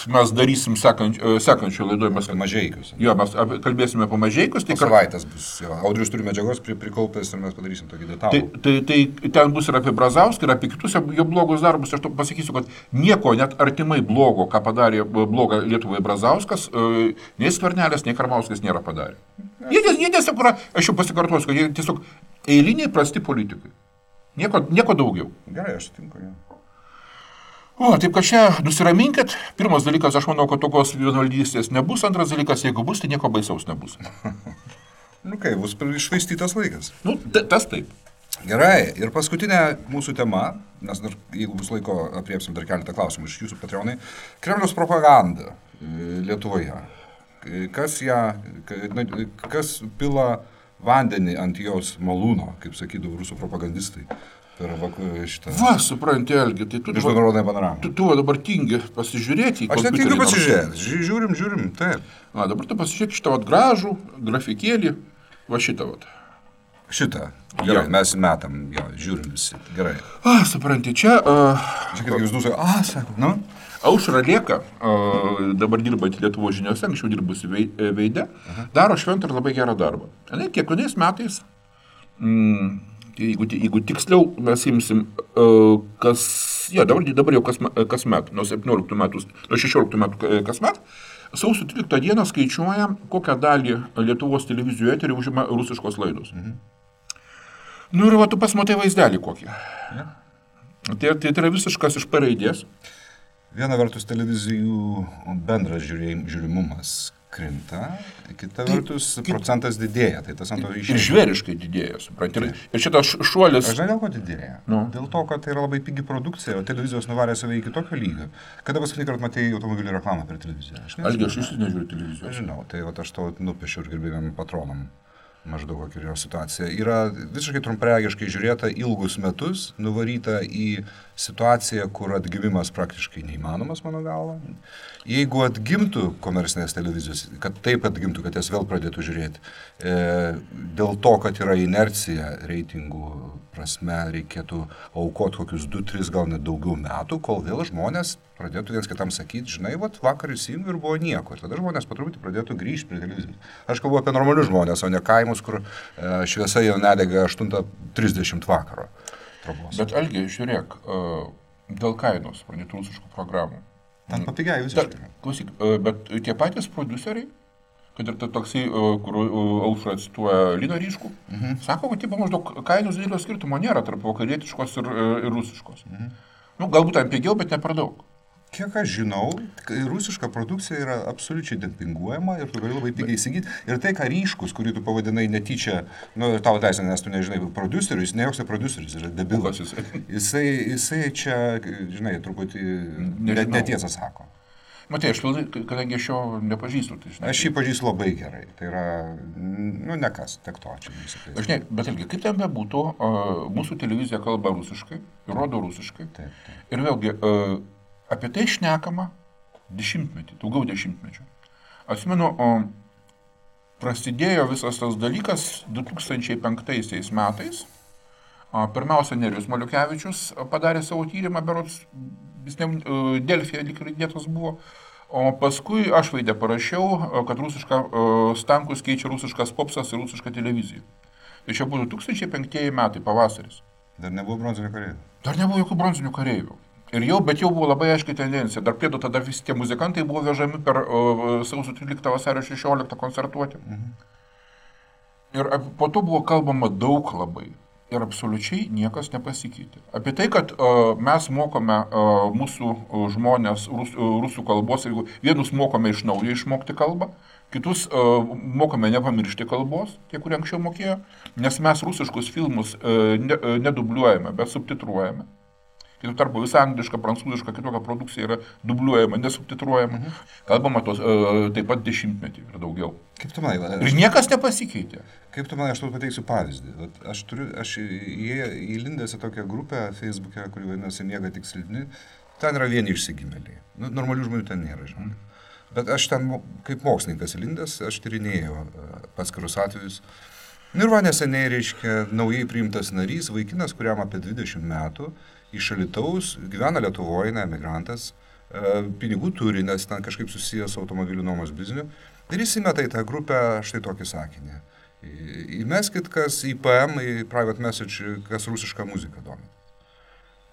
mes darysim sekančio laidoje. Mažeikius. Jo, mes kalbėsime apie Mažeikius. Tai savaitės bus. Audrius turi medžiagos prikaupęs ir mes padarysim tokį detalų. Tai ten bus ir apie Brazauską, ir apie kitus jo blogus darbus. Aš pasakysiu, kad nieko net artimai blogo, ką padarė blogą Lietuvai Brazauskas, nei Skvernelis, nei Karbauskis nėra padarę. Jie tiesiog, aš jau pasikartosiu, kad jie tiesiog eiliniai prasti politikai. Nieko daugiau. Gerai, aš sutinku, jo. Taip, kad čia nusiraminkit. Pirmas dalykas, aš manau, kad tokios vienvaldystės nebus. Antras dalykas, jeigu bus, tai nieko baisaus nebus. Bus iššvaistytas laikas. Tas taip. Gerai, ir paskutinė mūsų tema, nes dar, jeigu bus laiko, apriepsim dar keletą klausimų iš jūsų Patreonai. Kremliaus propaganda Lietuvoje. kas pila vandenį ant jos malūno, kaip sakydavo rusų propagandistai. Per šitą... Va, supranti, Algi, tai tu dabar tingi pasižiūrėti į kompiuterį. Aš netingiu pasižiūrėti, žiūrim, taip. Dabar tu pasižiūrėk šitą gražų grafikėlį, va šitą. Šitą, gerai, mes metam, žiūrim visi, gerai. Supranti, čia... Čia kaip jūs dusai, sako, nu? Aušra Lėka, dabar dirbanti Lietuvos žiniose, anksčiau dirbusi Veide, daro šventą ir labai gerą darbą. Kiekvienais metais... Jeigu tiksliau mes imsim, dabar jau kasmet, nuo 17 metų, nuo 16 metų kasmet, sausio 13 dieną skaičiuoja, kokią dalį Lietuvos televizijų eterį užima rusiškos laidos. Nu ir tu pasmatai vaizdelį kokį. Tai yra visiškas iš P raidės. Viena vertus televizijų bendras žiūrimumas krinta, kita vertus procentas didėja, tai tas ant to išėjo. Ir žvėriškai didėja, supranti. Ir šitas šuolis... Aš žinau, dėl ko didėja. Dėl to, kad tai yra labai pigi produkcija, o televizijos nuvarė save iki tokio lygio. Kada paskutinį kartą matei automobilių reklamą per televiziją? Algi, aš nežiūriu televizijos. Aš žinau, tai aš to nupiešiu ir gerbėjom patronam. Maždaug kokia yra situacija. Yra visiškai trumpregiškai žiūrėta ilgus metus, nuvaryta į situaciją, kur atgimimas praktiškai neįmanomas, mano galva. Jeigu atgimtų komercinės televizijos, kad taip atgimtų, kad jas vėl pradėtų žiūrėti, dėl to, kad yra inercija reitingų prasme, reikėtų aukoti kokius 2-3, gal net daugiau metų, kol vėl žmonės pradėtų viens kitam sakyti, žinai, vakar įsijungiu ir buvo nieko. Ir tada žmonės patruputį pradėtų grįžti prie televizijos. Aš kalbu apie normalius žmonės, o ne kaimus, kur šviesa jau nedega 8:30 vakaro. Trobos. Bet Algi, žiūrėk, dėl kainos pradėtų rusiškų programų. Ten papigiai visiškai. Klausyk, bet tie patys produceriai, kad ir toksai, kur Aušra cituoja Liną Ryškų, sako, kad maždaug kainos didelio skirtumo nėra tarp vakarietiškos ir rusiškos. Galbūt ten pigiau, bet ne per daug. Kiek aš žinau, rusiška produkcija yra absoliučiai dempinguojama ir tu gali labai pigiai įsigyti. Ir tai, ką Ryškus, kurį tu pavadinai netyčia, tavo teisė, nes tu nežinai, prodiuserius, ne joks prodiuseris, yra debilas. Jisai čia, žinai, truputį netiesą sako. Matai, aš kadangi aš jo nepažįstu, tai žinai. Aš jį pažįstu labai gerai. Tai yra, nekas, tiek to čia. Žinai, bet ilgi, kaip ten bebūtų, mūsų televizija kalba rusiškai, rodo rusiškai. Taip. Ir vėlgi, apie tai šnekama daugiau dešimtmečių. Atsimenu, prasidėjo visas tas dalykas 2005 metais. Pirmiausia, Nerijus Maliukevičius padarė savo tyrimą, berods, Delfyje lyg įdėtas buvo. O paskui aš Veide parašiau, kad rusiška Stankus keičia rusiškas popsas ir rusišką televiziją. Tai čia buvo 2005 metai, pavasaris. Dar nebuvo bronzinių kareivių? Dar nebuvo jokių bronzinių kareivių. Bet jau buvo labai aiškiai tendencija. Dar priedo tada visi tie muzikantai buvo vežami per sausio 13 vasario 16 koncertuoti. Ir po to buvo kalbama daug labai. Ir absoliučiai niekas nepasikeitė. Apie tai, kad mes mokome mūsų žmonės rusų kalbos, jeigu vienus mokome iš naujo išmokti kalbą, kitus mokome nepamiršti kalbos, tie, kurie anksčiau mokėjo, nes mes rusiškus filmus nedubliuojame, bet subtitruojame. Kitų tarpu visa angliška, prancūziška, kitokia produkcija yra dubliuojama, nesubtitruojama. Kalbama tos taip pat dešimtmetį ir daugiau. Kaip tu manai? Ir niekas nepasikeitė. Kaip tu manai, aš tau pateiksiu pavyzdį. Aš įlindęs į tokią grupę Facebook'e, kuri vadinasi Miega tik silpni, ten yra vieni išsigimėliai. Normalių žmonių ten nėra, žinai. Bet aš ten kaip mokslininkas įlindęs, aš tyrinėjau paskirus atvejus. Ir va neseniai, reiškia, naujai priimtas narys, vaikinas, kuriam apie 20 metų, iš Alytaus, gyvena Lietuvoje, emigrantas, pinigų turi, nes ten kažkaip susijęs su automobilių nuomos bizniu. Ir jis įmeta į tą grupę štai tokį sakinį. Įmeskit, kas į PM, į private message, kas rusišką muziką domina.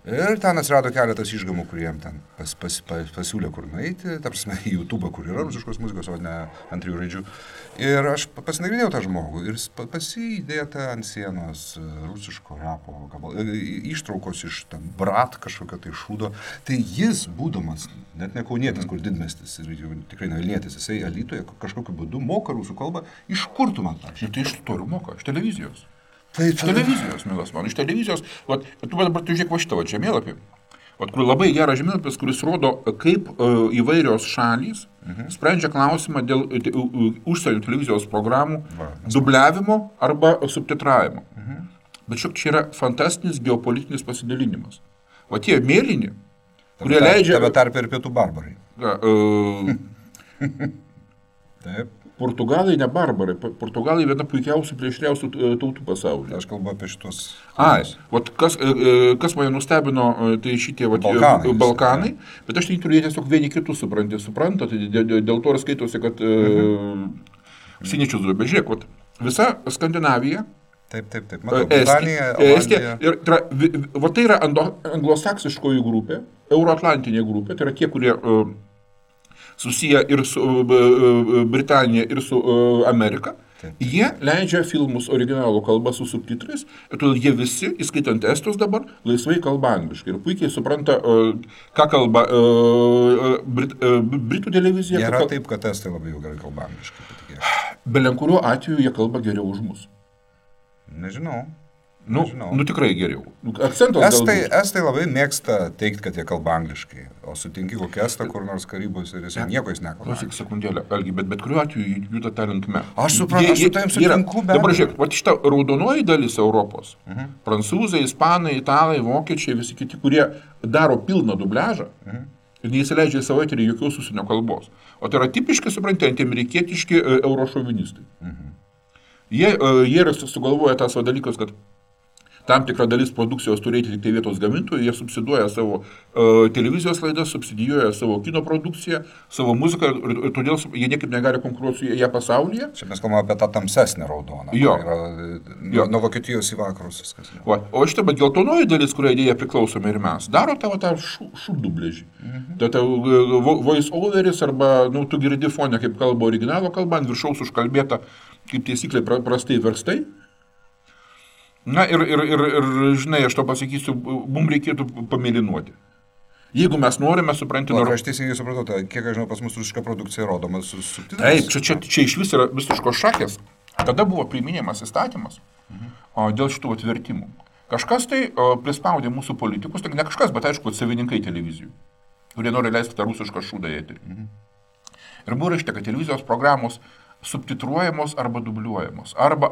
Ir ten atsirado keletas išgamų, kuriem ten pasiūlė kur nueiti, ta prasme, į YouTube, kur yra rusiškos muzikos, o ne ant 3 raidžių. Ir aš pasinagrinėjau tą žmogų ir pasidėta ant sienos rusiško rapo ištraukos iš Brat kažkokio tai šūdo. Tai jis, būdamas, net ne kaunietis, kur didmiestis ir jau tikrai ne Vilnietis, jisai Alytuje kažkokiu būdu moka rusų kalbą. Iš kur tu man tą? Ir tai iš tolių moka, iš televizijos. Iš televizijos, mielas man, iš televizijos. Tu dabar žiūrėk va šitą žemėlapį, kur labai geras žemėlapis, kuris rodo, kaip įvairios šalys sprendžia klausimą dėl užsienio televizijos programų dubliavimo arba subtitravimo. Bet šiok čia yra fantastinis geopolitinis pasidalinimas. O tie mėlyni, kurie leidžia... Tame tarp ir pietų barbarai. Taip. Portugalai ne barbarai, Portugalai viena puikiausių plėšriausių tautų pasaulyje. Aš kalbu apie šitos... Kas mane nustebino, tai šitie Balkanai, bet aš turiu tiesiog vieni kitus supranta, tai dėl to ir skaitosi, kad siniečius duobė. Žiūrėk, visa Skandinavija, Taip. Matau, Britanija, Olandija. Tai yra anglosaksiškoji grupė, euroatlantinė grupė, tai yra tie, kurie... susiję ir su Britanija, ir su Amerika. Taip. Jie leidžia filmus originalų kalbą su subtitrais, ir todėl jie visi, įskaitant estus dabar, laisvai kalba angliškai. Ir puikiai supranta, ką kalba Britų televizija. Nėra taip, kad estai labai jau gerai kalba angliškai. Belenkuriuo atveju jie kalba geriau už mus. Nežinau. Tikrai geriau. Akcentas estai labai mėgsta teikti, kad jie kalba angliškai, o sutinki kokią estą kur nors Karibos ir jis nieko jis nekalba. Klausyk sekundėlę, Algi, bet kuriuo atveju juda ta linkme. Aš suprantu, aš su tavim sutinku, bet... Dabar žiūrėk, šita raudonoji dalis Europos, prancūzai, ispanai, italai, vokiečiai, visi kiti, kurie daro pilną dubliažą, ir neįsileidžia į savo eterį jokios užsienio kalbos. O tai yra tipiškai, suprantant, amerikietiški eurošovinistai. Jie yra sugalvoję tas dalykas, kad tam tikra dalis produkcijos turėti tik tai vietos gamintojų, jie subsiduoja savo televizijos laidas, subsidijuoja savo kino produkciją, savo muziką, ir todėl jie niekaip negali konkuruoti su ją pasaulyje. Čia mes kalbame apie tą tamsesnę raudoną. Jo. Nuo Vokietijos į vakarus viskas. O šitą, bet geltonoji dalis, kurią idėja priklausome ir mes, daro tą šūdubležį. Tai voice overis arba, tu girdi fonę, kaip kalba originalo kalba, ant viršaus užkalbėta, kaip taisyklė prastai verstai. Na ir žinai, aš to pasakysiu, mums reikėtų pamėlynuoti. Jeigu mes norime, supranti... Aš teisingai supratau, kiek aš žinau, pas mus rusiška produkcija rodoma su Taip, subtitrais. čia iš vis yra visiškos šakės. Tada buvo priiminėjamas įstatymas dėl šitų atvertimų. Kažkas tai prispaudė mūsų politikus, tai ne kažkas, bet aišku, savininkai televizijų, kurie nori leisti tą rusišką šūdą į eterį. Ir buvo rašyta, kad televizijos programos subtitruojamos arba dubliuojamos. Arba.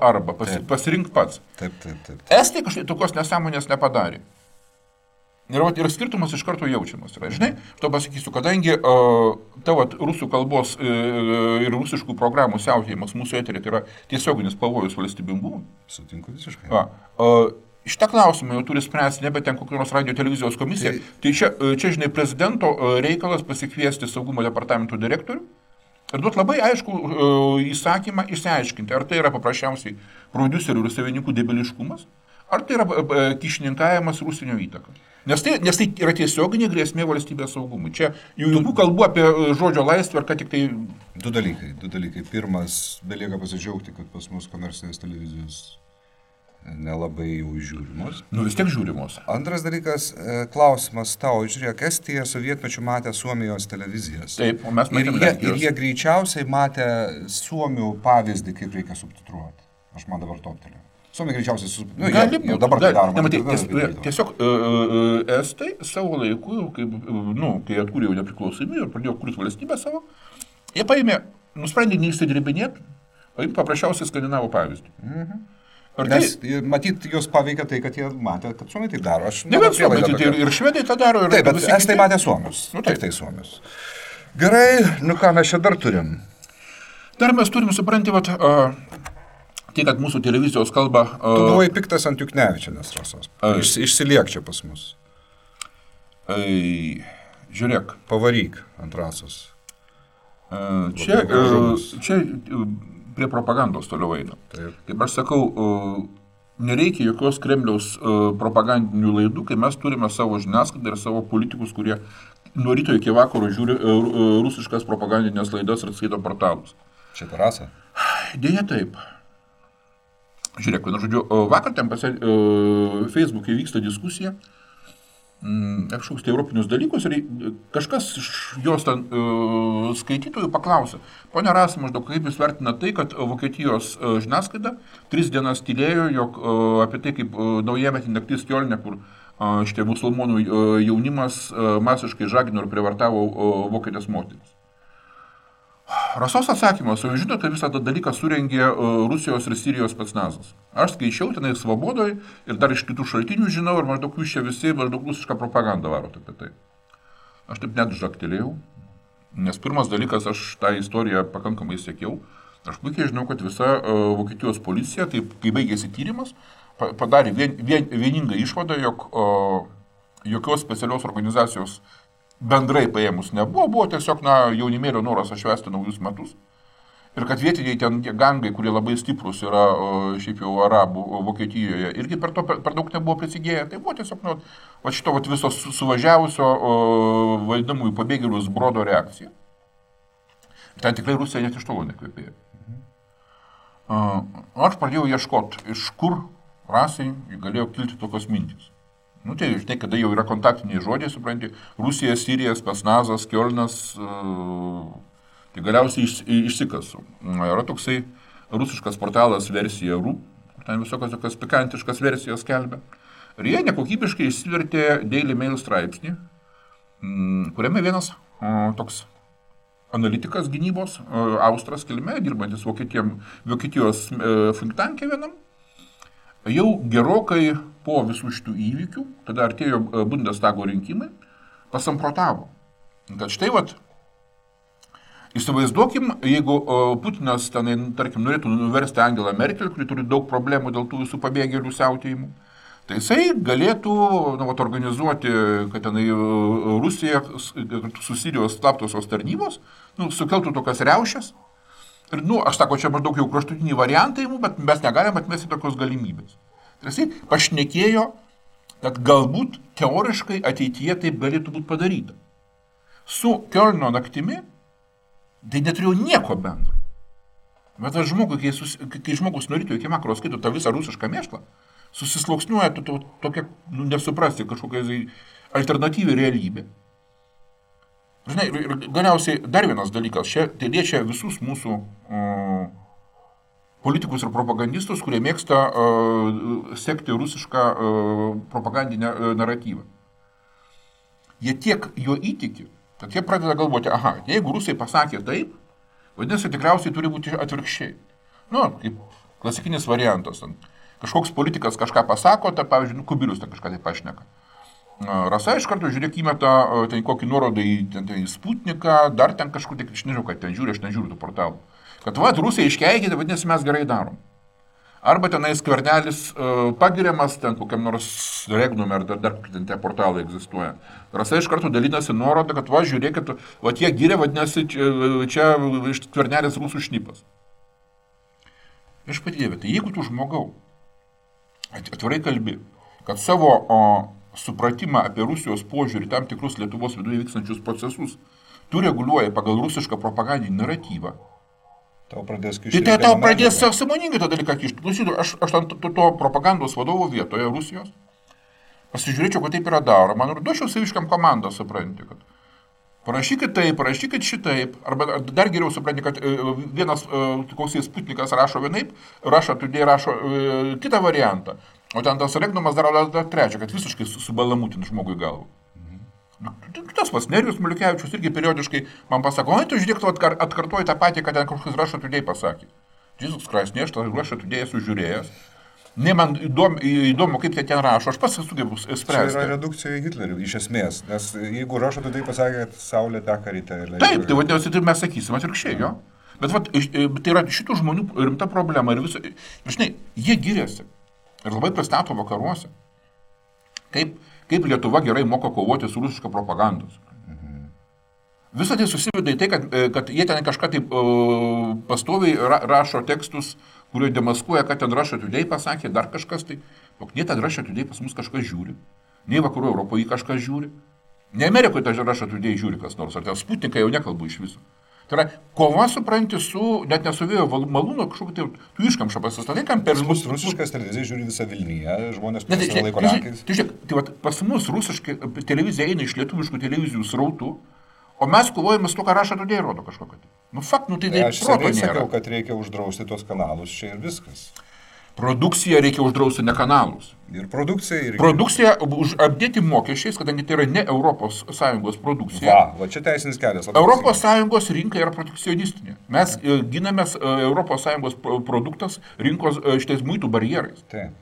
Pasirink pats. Taip. Estai kažkaip tokios nesąmonės nepadarė. Ir skirtumas iš karto jaučiamas. Žinai, to pasakysiu, kadangi tavo rusų kalbos ir rusiškų programų siautėjimas mūsų eterį tai yra tiesioginis pavojus valstybingumui. Sutinku visiškai. Šitą klausimą jau turi spręsti nebe ten kokios radio televizijos komisija. Tai čia, žinai, prezidento reikalas pasikviesti saugumo departamento direktorių ir duoti labai aišku įsakymą išsiaiškinti, ar tai yra paprasčiausiai prodiuserių ir savininkų debiliškumas, ar tai yra kišininkavimas ir užsienio įtaka. Nes tai yra tiesioginė grėsmė valstybės saugumui. Čia jokių kalbų apie žodžio laisvę, ar ką tik tai... Du dalykai. Pirmas, belieka pasidžiaugti, kad pas mus komercinės televizijos nelabai jau žiūrimos. Vis tiek žiūrimos. Antras dalykas, klausimas tau, žiūrėk, Estija sovietmečiu matė Suomijos televizijas. Taip, o mes matėm Lenkijos. Ir jie greičiausiai matė Suomių pavyzdį, kaip reikia subtitruoti. Aš man dabar toptelėjau. Suomija greičiausiai dabar tai daroma. Tiesiog Estai savo laiku, kai atkūrė jau nepriklausomybę ir pradėjo kurti valstybę savo, jie nusprendė neįsidribinėti, paimti paprasčiausiai skandinavų pavyzdį. Nes matyt, jos paveikia tai, kad jie matė, kad suomiai taip daro. Ne, bet suomiai ir švedai tą daro. Taip, bet estai matė suomius. Taip, tai suomius. Gerai, ką mes čia dar turim? Dar mes turim, supranti, tai, kad mūsų televizijos kalba... Tu buvai piktas ant Juknevičienės rasos. Išsiliek čia pas mus. Žiūrėk. Pavaryk ant rasos. Čia prie propagandos toliau eina. Kaip aš sakau, nereikia jokios Kremliaus propagandinių laidų, kai mes turime savo žiniasklaidą ir savo politikus, kurie nuo ryto iki vakaro žiūri rusiškas propagandinės laidas ir skaito portalus. Čia terasa? Deja taip. Žiūrėk, vakar ten Facebook'e vyksta diskusija, kažkoks tai europinius dalykus ir kažkas iš jos ten skaitytojų paklausė. Pone Rasa, maždaug kaip jūs vertina tai, kad Vokietijos žiniasklaida 3 dienas tylėjo, jog apie tai, kaip naujametį naktis Kiolne, kur šitie musulmonų jaunimas masiškai žagino ir privartavo vokietės moteris. Rasos atsakymas, o jūs žinote, kad visą tą dalyką surengė Rusijos ir Sirijos specnazas. Aš skaičiau tenai Svobodoj ir dar iš kitų šaltinių žinau ir maždaug jūs čia visi maždaug rusišką propagandą varot apie tai. Aš taip net žaktelėjau, nes pirmas dalykas, aš tą istoriją pakankamai sekiau. Aš puikiai žinau, kad visa Vokietijos policija, taip, kai baigėsi tyrimas, padarė vieningą išvadą, jog jokios specialios organizacijos bendrai paėmus nebuvo, buvo tiesiog jaunimėlio noras atšvęsti naujus metus. Ir kad vietiniai ten tie gangai, kurie labai stiprus yra šiaip jau arabų Vokietijoje, irgi per daug nebuvo prisigėję. Tai buvo tiesiog šito viso suvažiavusio vadinamųjų pabėgėlių zbrodo reakcija. Ten tikrai Rusija net iš tolo nekvėpėjo. Aš pradėjau ieškoti, iš kur rasai galėjo kilti tokios mintys. Nu, tai žinai, kada jau yra kontaktiniai žodžiai, supranti, Rusija, Sirija, specnazas, Kiolnas, tai galiausiai išsikasu. Yra toksai rusiškas portalas versija.ru, ten visokios tokios pikantiškas versijos skelbia. Ir jie nekokybiškai išsivertė Daily Mail straipsnį, kuriame vienas toks analitikas gynybos, Austras kilme, dirbantis Vokietijos think tank'e vienam, jau gerokai po visų šitų įvykių, tada artėjo Bundestago rinkimai, pasamprotavo, kad štai įsivaizduokim, jeigu Putinas tenai, tarkim, norėtų nuversti Angelą Merkel, kuri turi daug problemų dėl tų visų pabėgėlių siautėjimų, tai jisai galėtų organizuoti, kad tenai Rusija su Sirijos slaptosios tarnybos sukeltų tokias riaušes. Ir, aš sako, čia maždaug jau kraštutiniai variantai, bet mes negalim atmesti tokios galimybės. Tai jisai pašnekėjo, kad galbūt teoriškai ateityje taip galėtų būti padaryta. Su Kiolno naktimi tai neturėjo nieko bendro. Bet žmogui, kai žmogus nuo ryto iki vakaro skaito tą visą rusišką mėšlą, susisluoksniuoja tokia, nesuprasti kažkokia alternatyvi realybė. Žinai, ir galiausiai dar vienas dalykas, tai liečia visus mūsų politikus ir propagandistus, kurie mėgsta sekti rusišką propagandinę naratyvą. Jie tiek jo įtiki, kad jie pradeda galvoti, jeigu rusai pasakė taip, vadinasi, tikriausiai turi būti atvirkščiai. Kaip klasikinis variantas. Kažkoks politikas kažką pasako, pavyzdžiui, Kubilius kažką tai pašneka. Rasa iš karto žiūrėk įmeta kokį nuorodą į Sputniką, dar ten kažkur, aš nežinau, kad ten žiūri, aš nežiūriu tų portalų. Kad Rusija iškeikė, tai vadinasi, mes gerai darom. Arba tenais Skvernelis pagiriamas, ten kokiam nors Regnum ar dar ten tie portalai egzistuoja. Rasa iš karto dalinasi nuorodą, kad žiūrėkit, jie gyrė, vadinasi, čia Skvernelis rusų šnipas. Aš padėjau, tai jeigu tu žmogau atvirai kalbi, kad savo supratimą apie Rusijos požiūrį tam tikrus Lietuvos viduje vykstančius procesus tu reguliuoji pagal rusišką propagandinį naratyvą, tau pradės kišti. Tai tau pradės sąmoningai tą dalyką kišti. Klausytų, aš to propagandos vadovo vietoje Rusijos pasižiūrėčiau, kad taip yra daroma, ir duočiau saviškam komandą, supranti, kad parašykit taip, parašykit šitaip, arba dar geriau supranti, kad vienas koks Sputnikas rašo vienaip, Russia Today rašo kitą variantą, o ten tas Regnumas daro dar trečią, kad visiškai subalamutin žmogui galvą. Tas pas Nerijus Maliukevičius irgi periodiškai man pasako, tu žiūrėk, tu atkartoji tą patį, kad ten kažkas Russia Today pasakė. Jesus Christ, ne, aš tą Russia Today esu žiūrėjęs. Ne, man įdomu, kaip tai ten rašo, aš pats sugebu spręsti. Tai yra redukcija į Hitlerį, iš esmės, nes jeigu Russia Today pasakė, kad Saulė teka ryte. Taip, tai vadinasi, tai mes sakysim atvirkščiai, jo. Bet tai yra šitų žmonių rimta problema ir visą, žinai, jie giriasi ir labai pristato vakaruose. Kaip Lietuva gerai moka kovoti su rusiška propagandos. Visą tai susiveda į tai, kad jie ten kažką taip pastoviai rašo tekstus, kurio demaskuoja, kad ten Russia Today pasakė, dar kažkas tai. Ne ten Russia Today pas mus kažkas žiūri, nei vakarų Europoje kažkas žiūri, ne Amerikoje ten Russia Today žiūri kas nors, ar ten Sputniką jau nekalbu iš viso. Tai yra, kova supranti net ne su vėjo malūno, kažkokį tai tu iškamšą pasistatai, kam per... Pas mus rusiškas televizija žiūri visą Vilniuje, žmonės savo laiko rankais. Tai pas mus rusiškai televizija eina iš lietuviškų televizijų srautų, o mes kovojame su to, ką Russia Today rodo kažkokį. Tai aš seniai sakiau, kad reikia uždrausti tos kanalus čia ir viskas. Produkciją reikia uždrausti, ne kanalus. Ir produkcija. Produkcija apdėti mokesčiais, kadangi tai yra ne ES produkcija. Va čia teisinis kelias. ES rinka yra protekcionistinė. Mes ginamės ES produktas rinkos šitais muitų barjerais. Taip.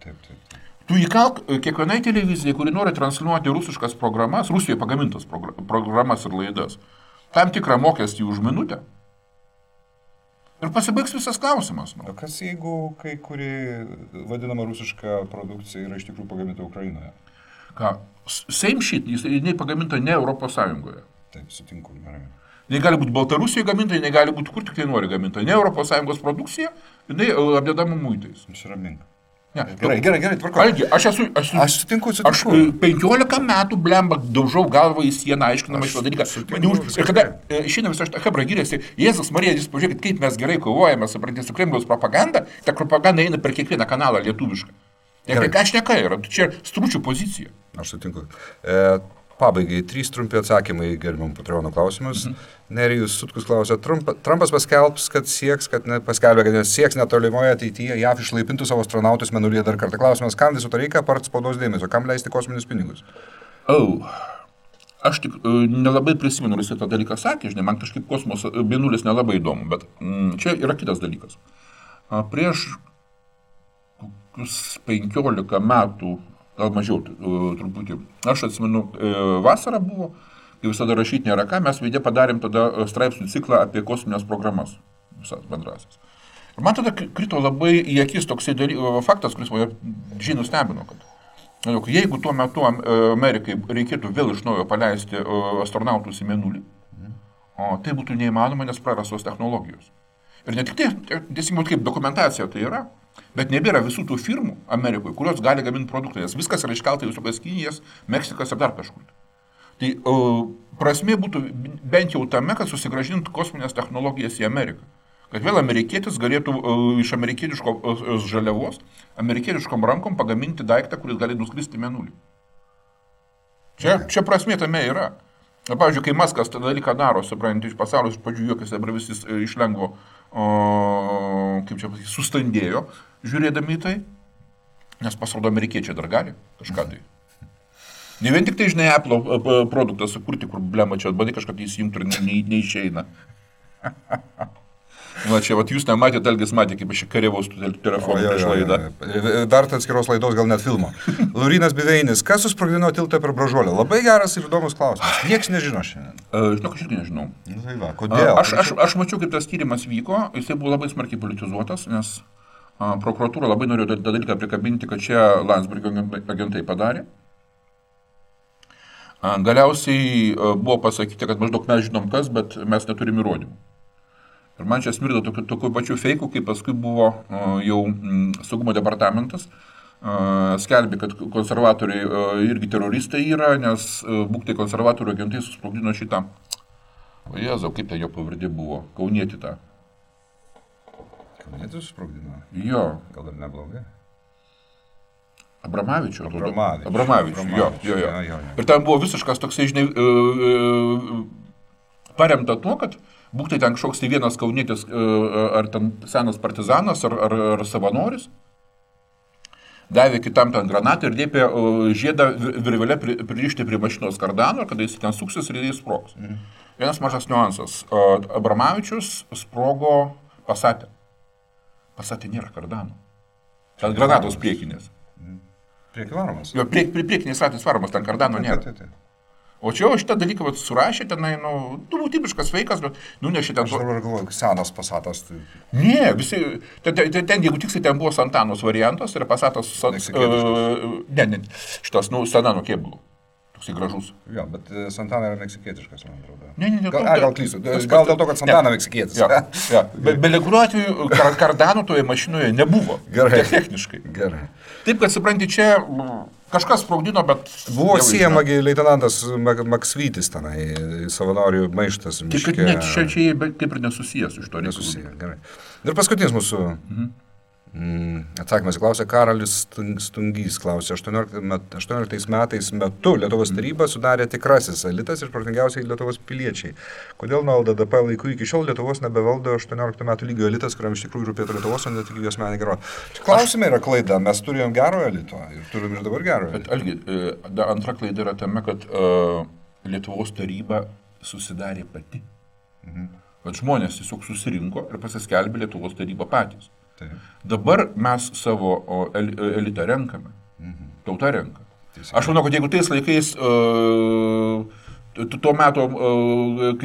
Tu įkalk kiekvienai televizijai, kuri nori transliuoti rusiškas programas, Rusijoje pagamintas programas ir laidas, tam tikrą mokestį už minutę. Ir pasibaigs visas klausimas. O kas jeigu kai kuri vadinama rusiška produkcija yra iš tikrųjų pagaminta Ukrainoje? Ką? Same shit, jinai pagaminta ne ES. Taip, sutinku, gerai. Jinai gali būti Baltarusijoje gaminta, jinai gali būti kur tik tai nori gaminta. Ne ES produkcija, jinai apdedama muitais. Nusiramink. Ne. Gerai, tvarko. Algi, aš sutinku. Aš 15 metų blemba daužau galvą į sieną, aiškinama šitą dalyką. Ir kada šiandien visą šitą hebrą gyrėsi, Jėzus Marija, jūs pažiūrėkit, kaip mes gerai kovojame, suprantate, su Kremliaus propaganda, ta propaganda eina per kiekvieną kanalą lietuvišką. Ką šneka yra, čia stručių pozicija. Aš sutinku. Pabaigai, 3 trumpi atsakymai gerbiam Patreono klausimus. Nerijus Sutkus klausė, Trumpas paskelbs, kad sieks netolimoje ateityje JAV išlaipintų savo astronautus mėnulyje dar kartą. Klausimas, kam viso to reikia, apart spaudos dėmesio, kam leisti kosminius pinigus? Aš tik nelabai prisimenu, jis tą dalyką sakė, žinai, man kažkaip kosmoso mėnulis nelabai įdomu, bet čia yra kitas dalykas. Prieš 15 metų, gal mažiau truputį. Aš atsimenu, vasara buvo, kai visada rašyti nėra ką, mes veidė padarėm tada straipsnių ciklą apie kosminės programas, visas bendrasis. Ir man tada krito labai į akis toksai faktas, kuris mane žinų stebino, kad jeigu tuo metu Amerikai reikėtų vėl iš naujo paleisti astronautus į mėnulį, tai būtų neįmanoma, nes prarastos technologijos. Ir ne tik tai, tiesiog kaip dokumentacija tai yra, bet nebėra visų tų firmų Amerikoje, kurios gali gaminti produktą, nes viskas yra iškelta į visokias Kinijas, Meksikas ir dar kažkur. Tai prasmė būtų bent jau tame, kad susigrąžintų kosminės technologijas į Ameriką. Kad vėl amerikietis galėtų iš amerikietiškos žaliavos, amerikietiškom rankom pagaminti daiktą, kuris gali nuskristi į mėnulį. Čia prasmė tame yra. Na, pavyzdžiui, kai Maskas tą dalyką daro, suprantate, iš pasaulio iš pradžių juokiasi, dabar visi iš lengvo, kaip čia pasakyti, sustandėjo, žiūrėdami į tai, nes pasirodo amerikiečiai dar gali kažką tai. Ne vien tik tai, žinai, Apple produktą sukurti, kur blema čia bandai kažką tai įsijungti ir neišeina. Na, čia, jūs nematėte, Algis matė, kaip aš karėvaus telefoną prieš laidą. Dar atskiros laidos, gal net filmo. Laurinas Biveinis, kas susprogdino tiltą per Bražuolę? Labai geras ir įdomus klausimas. Niekas nežino šiandien. Žinok, aš irgi nežinau. Tai va, kodėl? Aš mačiau, kaip tas tyrimas vyko, jisai buvo labai smarkiai politizuotas, nes prokuratūra labai norėjo tą dalyką prikabinti, kad čia Landsbergio agentai padarė. Galiausiai buvo pasakyti, kad maždaug mes žinom kas, bet mes neturim įrodymų. Ir man čia smirda tokių pačių feikų, kaip paskui buvo jau saugumo departamentas, skelbė, kad konservatoriai irgi teroristai yra, nes būktai konservatorių agentai susprogdino šitą. O Jėzau, kaip tai jo pavardė buvo? Kaunietį tą. Kaunietį susprogdino? Jo. Gal ir neblogai? Abramavičių. Jo. Ir ten buvo visiškas toksai, žinai, paremta tuo, kad būktai ten kažkoks tai vienas kaunietis, ar ten senas partizanas, ar savanoris, davė kitam ten granatą ir dėpė žiedą virvelę pririšti prie mašinos kardano, kada jis ten suksis ir jis sprogs. Vienas mažas niuansas. Abramavičius sprogo Pasate. Pasate nėra kardano. Ten granatos priekinės. Priekį varomas? Jo, priekinės ratais varomas, ten kardano nėra. O čia šitą dalyką surašė, tenai, tipiškas feikas, bet nunešė ten... Aš dabar galvoju, senas Pasatas. Tai... Ne, visi... Ten, jeigu tiksliai, ten buvo Santanos variantas ir Pasatas... šitas, Sanano kėbulų. Toksai gražus. Jo, bet Santana yra meksikietiškas, man atrodo. Ne. Gal klystu. Gal dėl to, kad Santana meksikietis. Ja. Bet kuriuo atveju kardano toje mašinoje nebuvo. Gerai. Techniškai. Gerai. Taip, kad supranti, čia... Kažkas sprogdino, bet... Buvo siejamagi leitenantas Maksvytis tenai, savanorių maištas miške. Tik net čia kaip ir nesusijęs iš to. Nesusiję, gerai. Ir paskutinis mūsų Atsakymas klausė Karolis Stungys, klausė, 18 metais metu Lietuvos taryba sudarė tikrasis elitas ir protingiausiai Lietuvos piliečiai. Kodėl nuo LDDP laikų iki šiol Lietuvos nebevaldo 18 metų lygio elitas, kuriam iš tikrųjų rūpėtų Lietuvos, o ne tik jos meninė gerovė? Klausimai yra klaida, mes turėjom gero elito ir turim ir dabar gero elito. Bet Algi, antra klaida yra tame, kad Lietuvos taryba susidarė pati. Kad žmonės tiesiog susirinko ir pasiskelbė Lietuvos tarybą patys. Dabar mes savo elitą renkame. Tauta renka. Aš manau, kad jeigu tais laikais tuo metu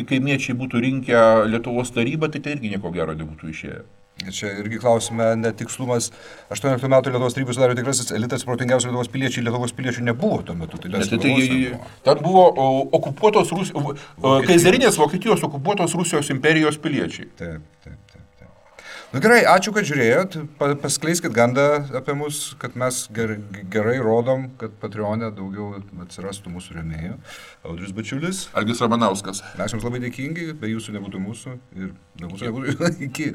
kaimiečiai būtų rinkę Lietuvos tarybą, tai irgi nieko gero nebūtų išėję. Čia irgi klausime netikslumas. 18 metų Lietuvos tarybos sudarė tikrasis elitas, protingiausių Lietuvos piliečiai. Lietuvos piliečių nebuvo tuo metu. Ten buvo okupuotos kaizarinės Vokietijos okupuotos Rusijos imperijos piliečiai. Taip. Nu gerai, ačiū, kad žiūrėjot. Paskleiskit gandą apie mus, kad mes gerai rodom, kad Patreon'e daugiau atsirastų mūsų rėmėjų. Audrius Bačiulis. Algis Ramanauskas. Mes jums labai dėkingi, be jūsų nebūtų mūsų ir be mūsų nebūtų iki.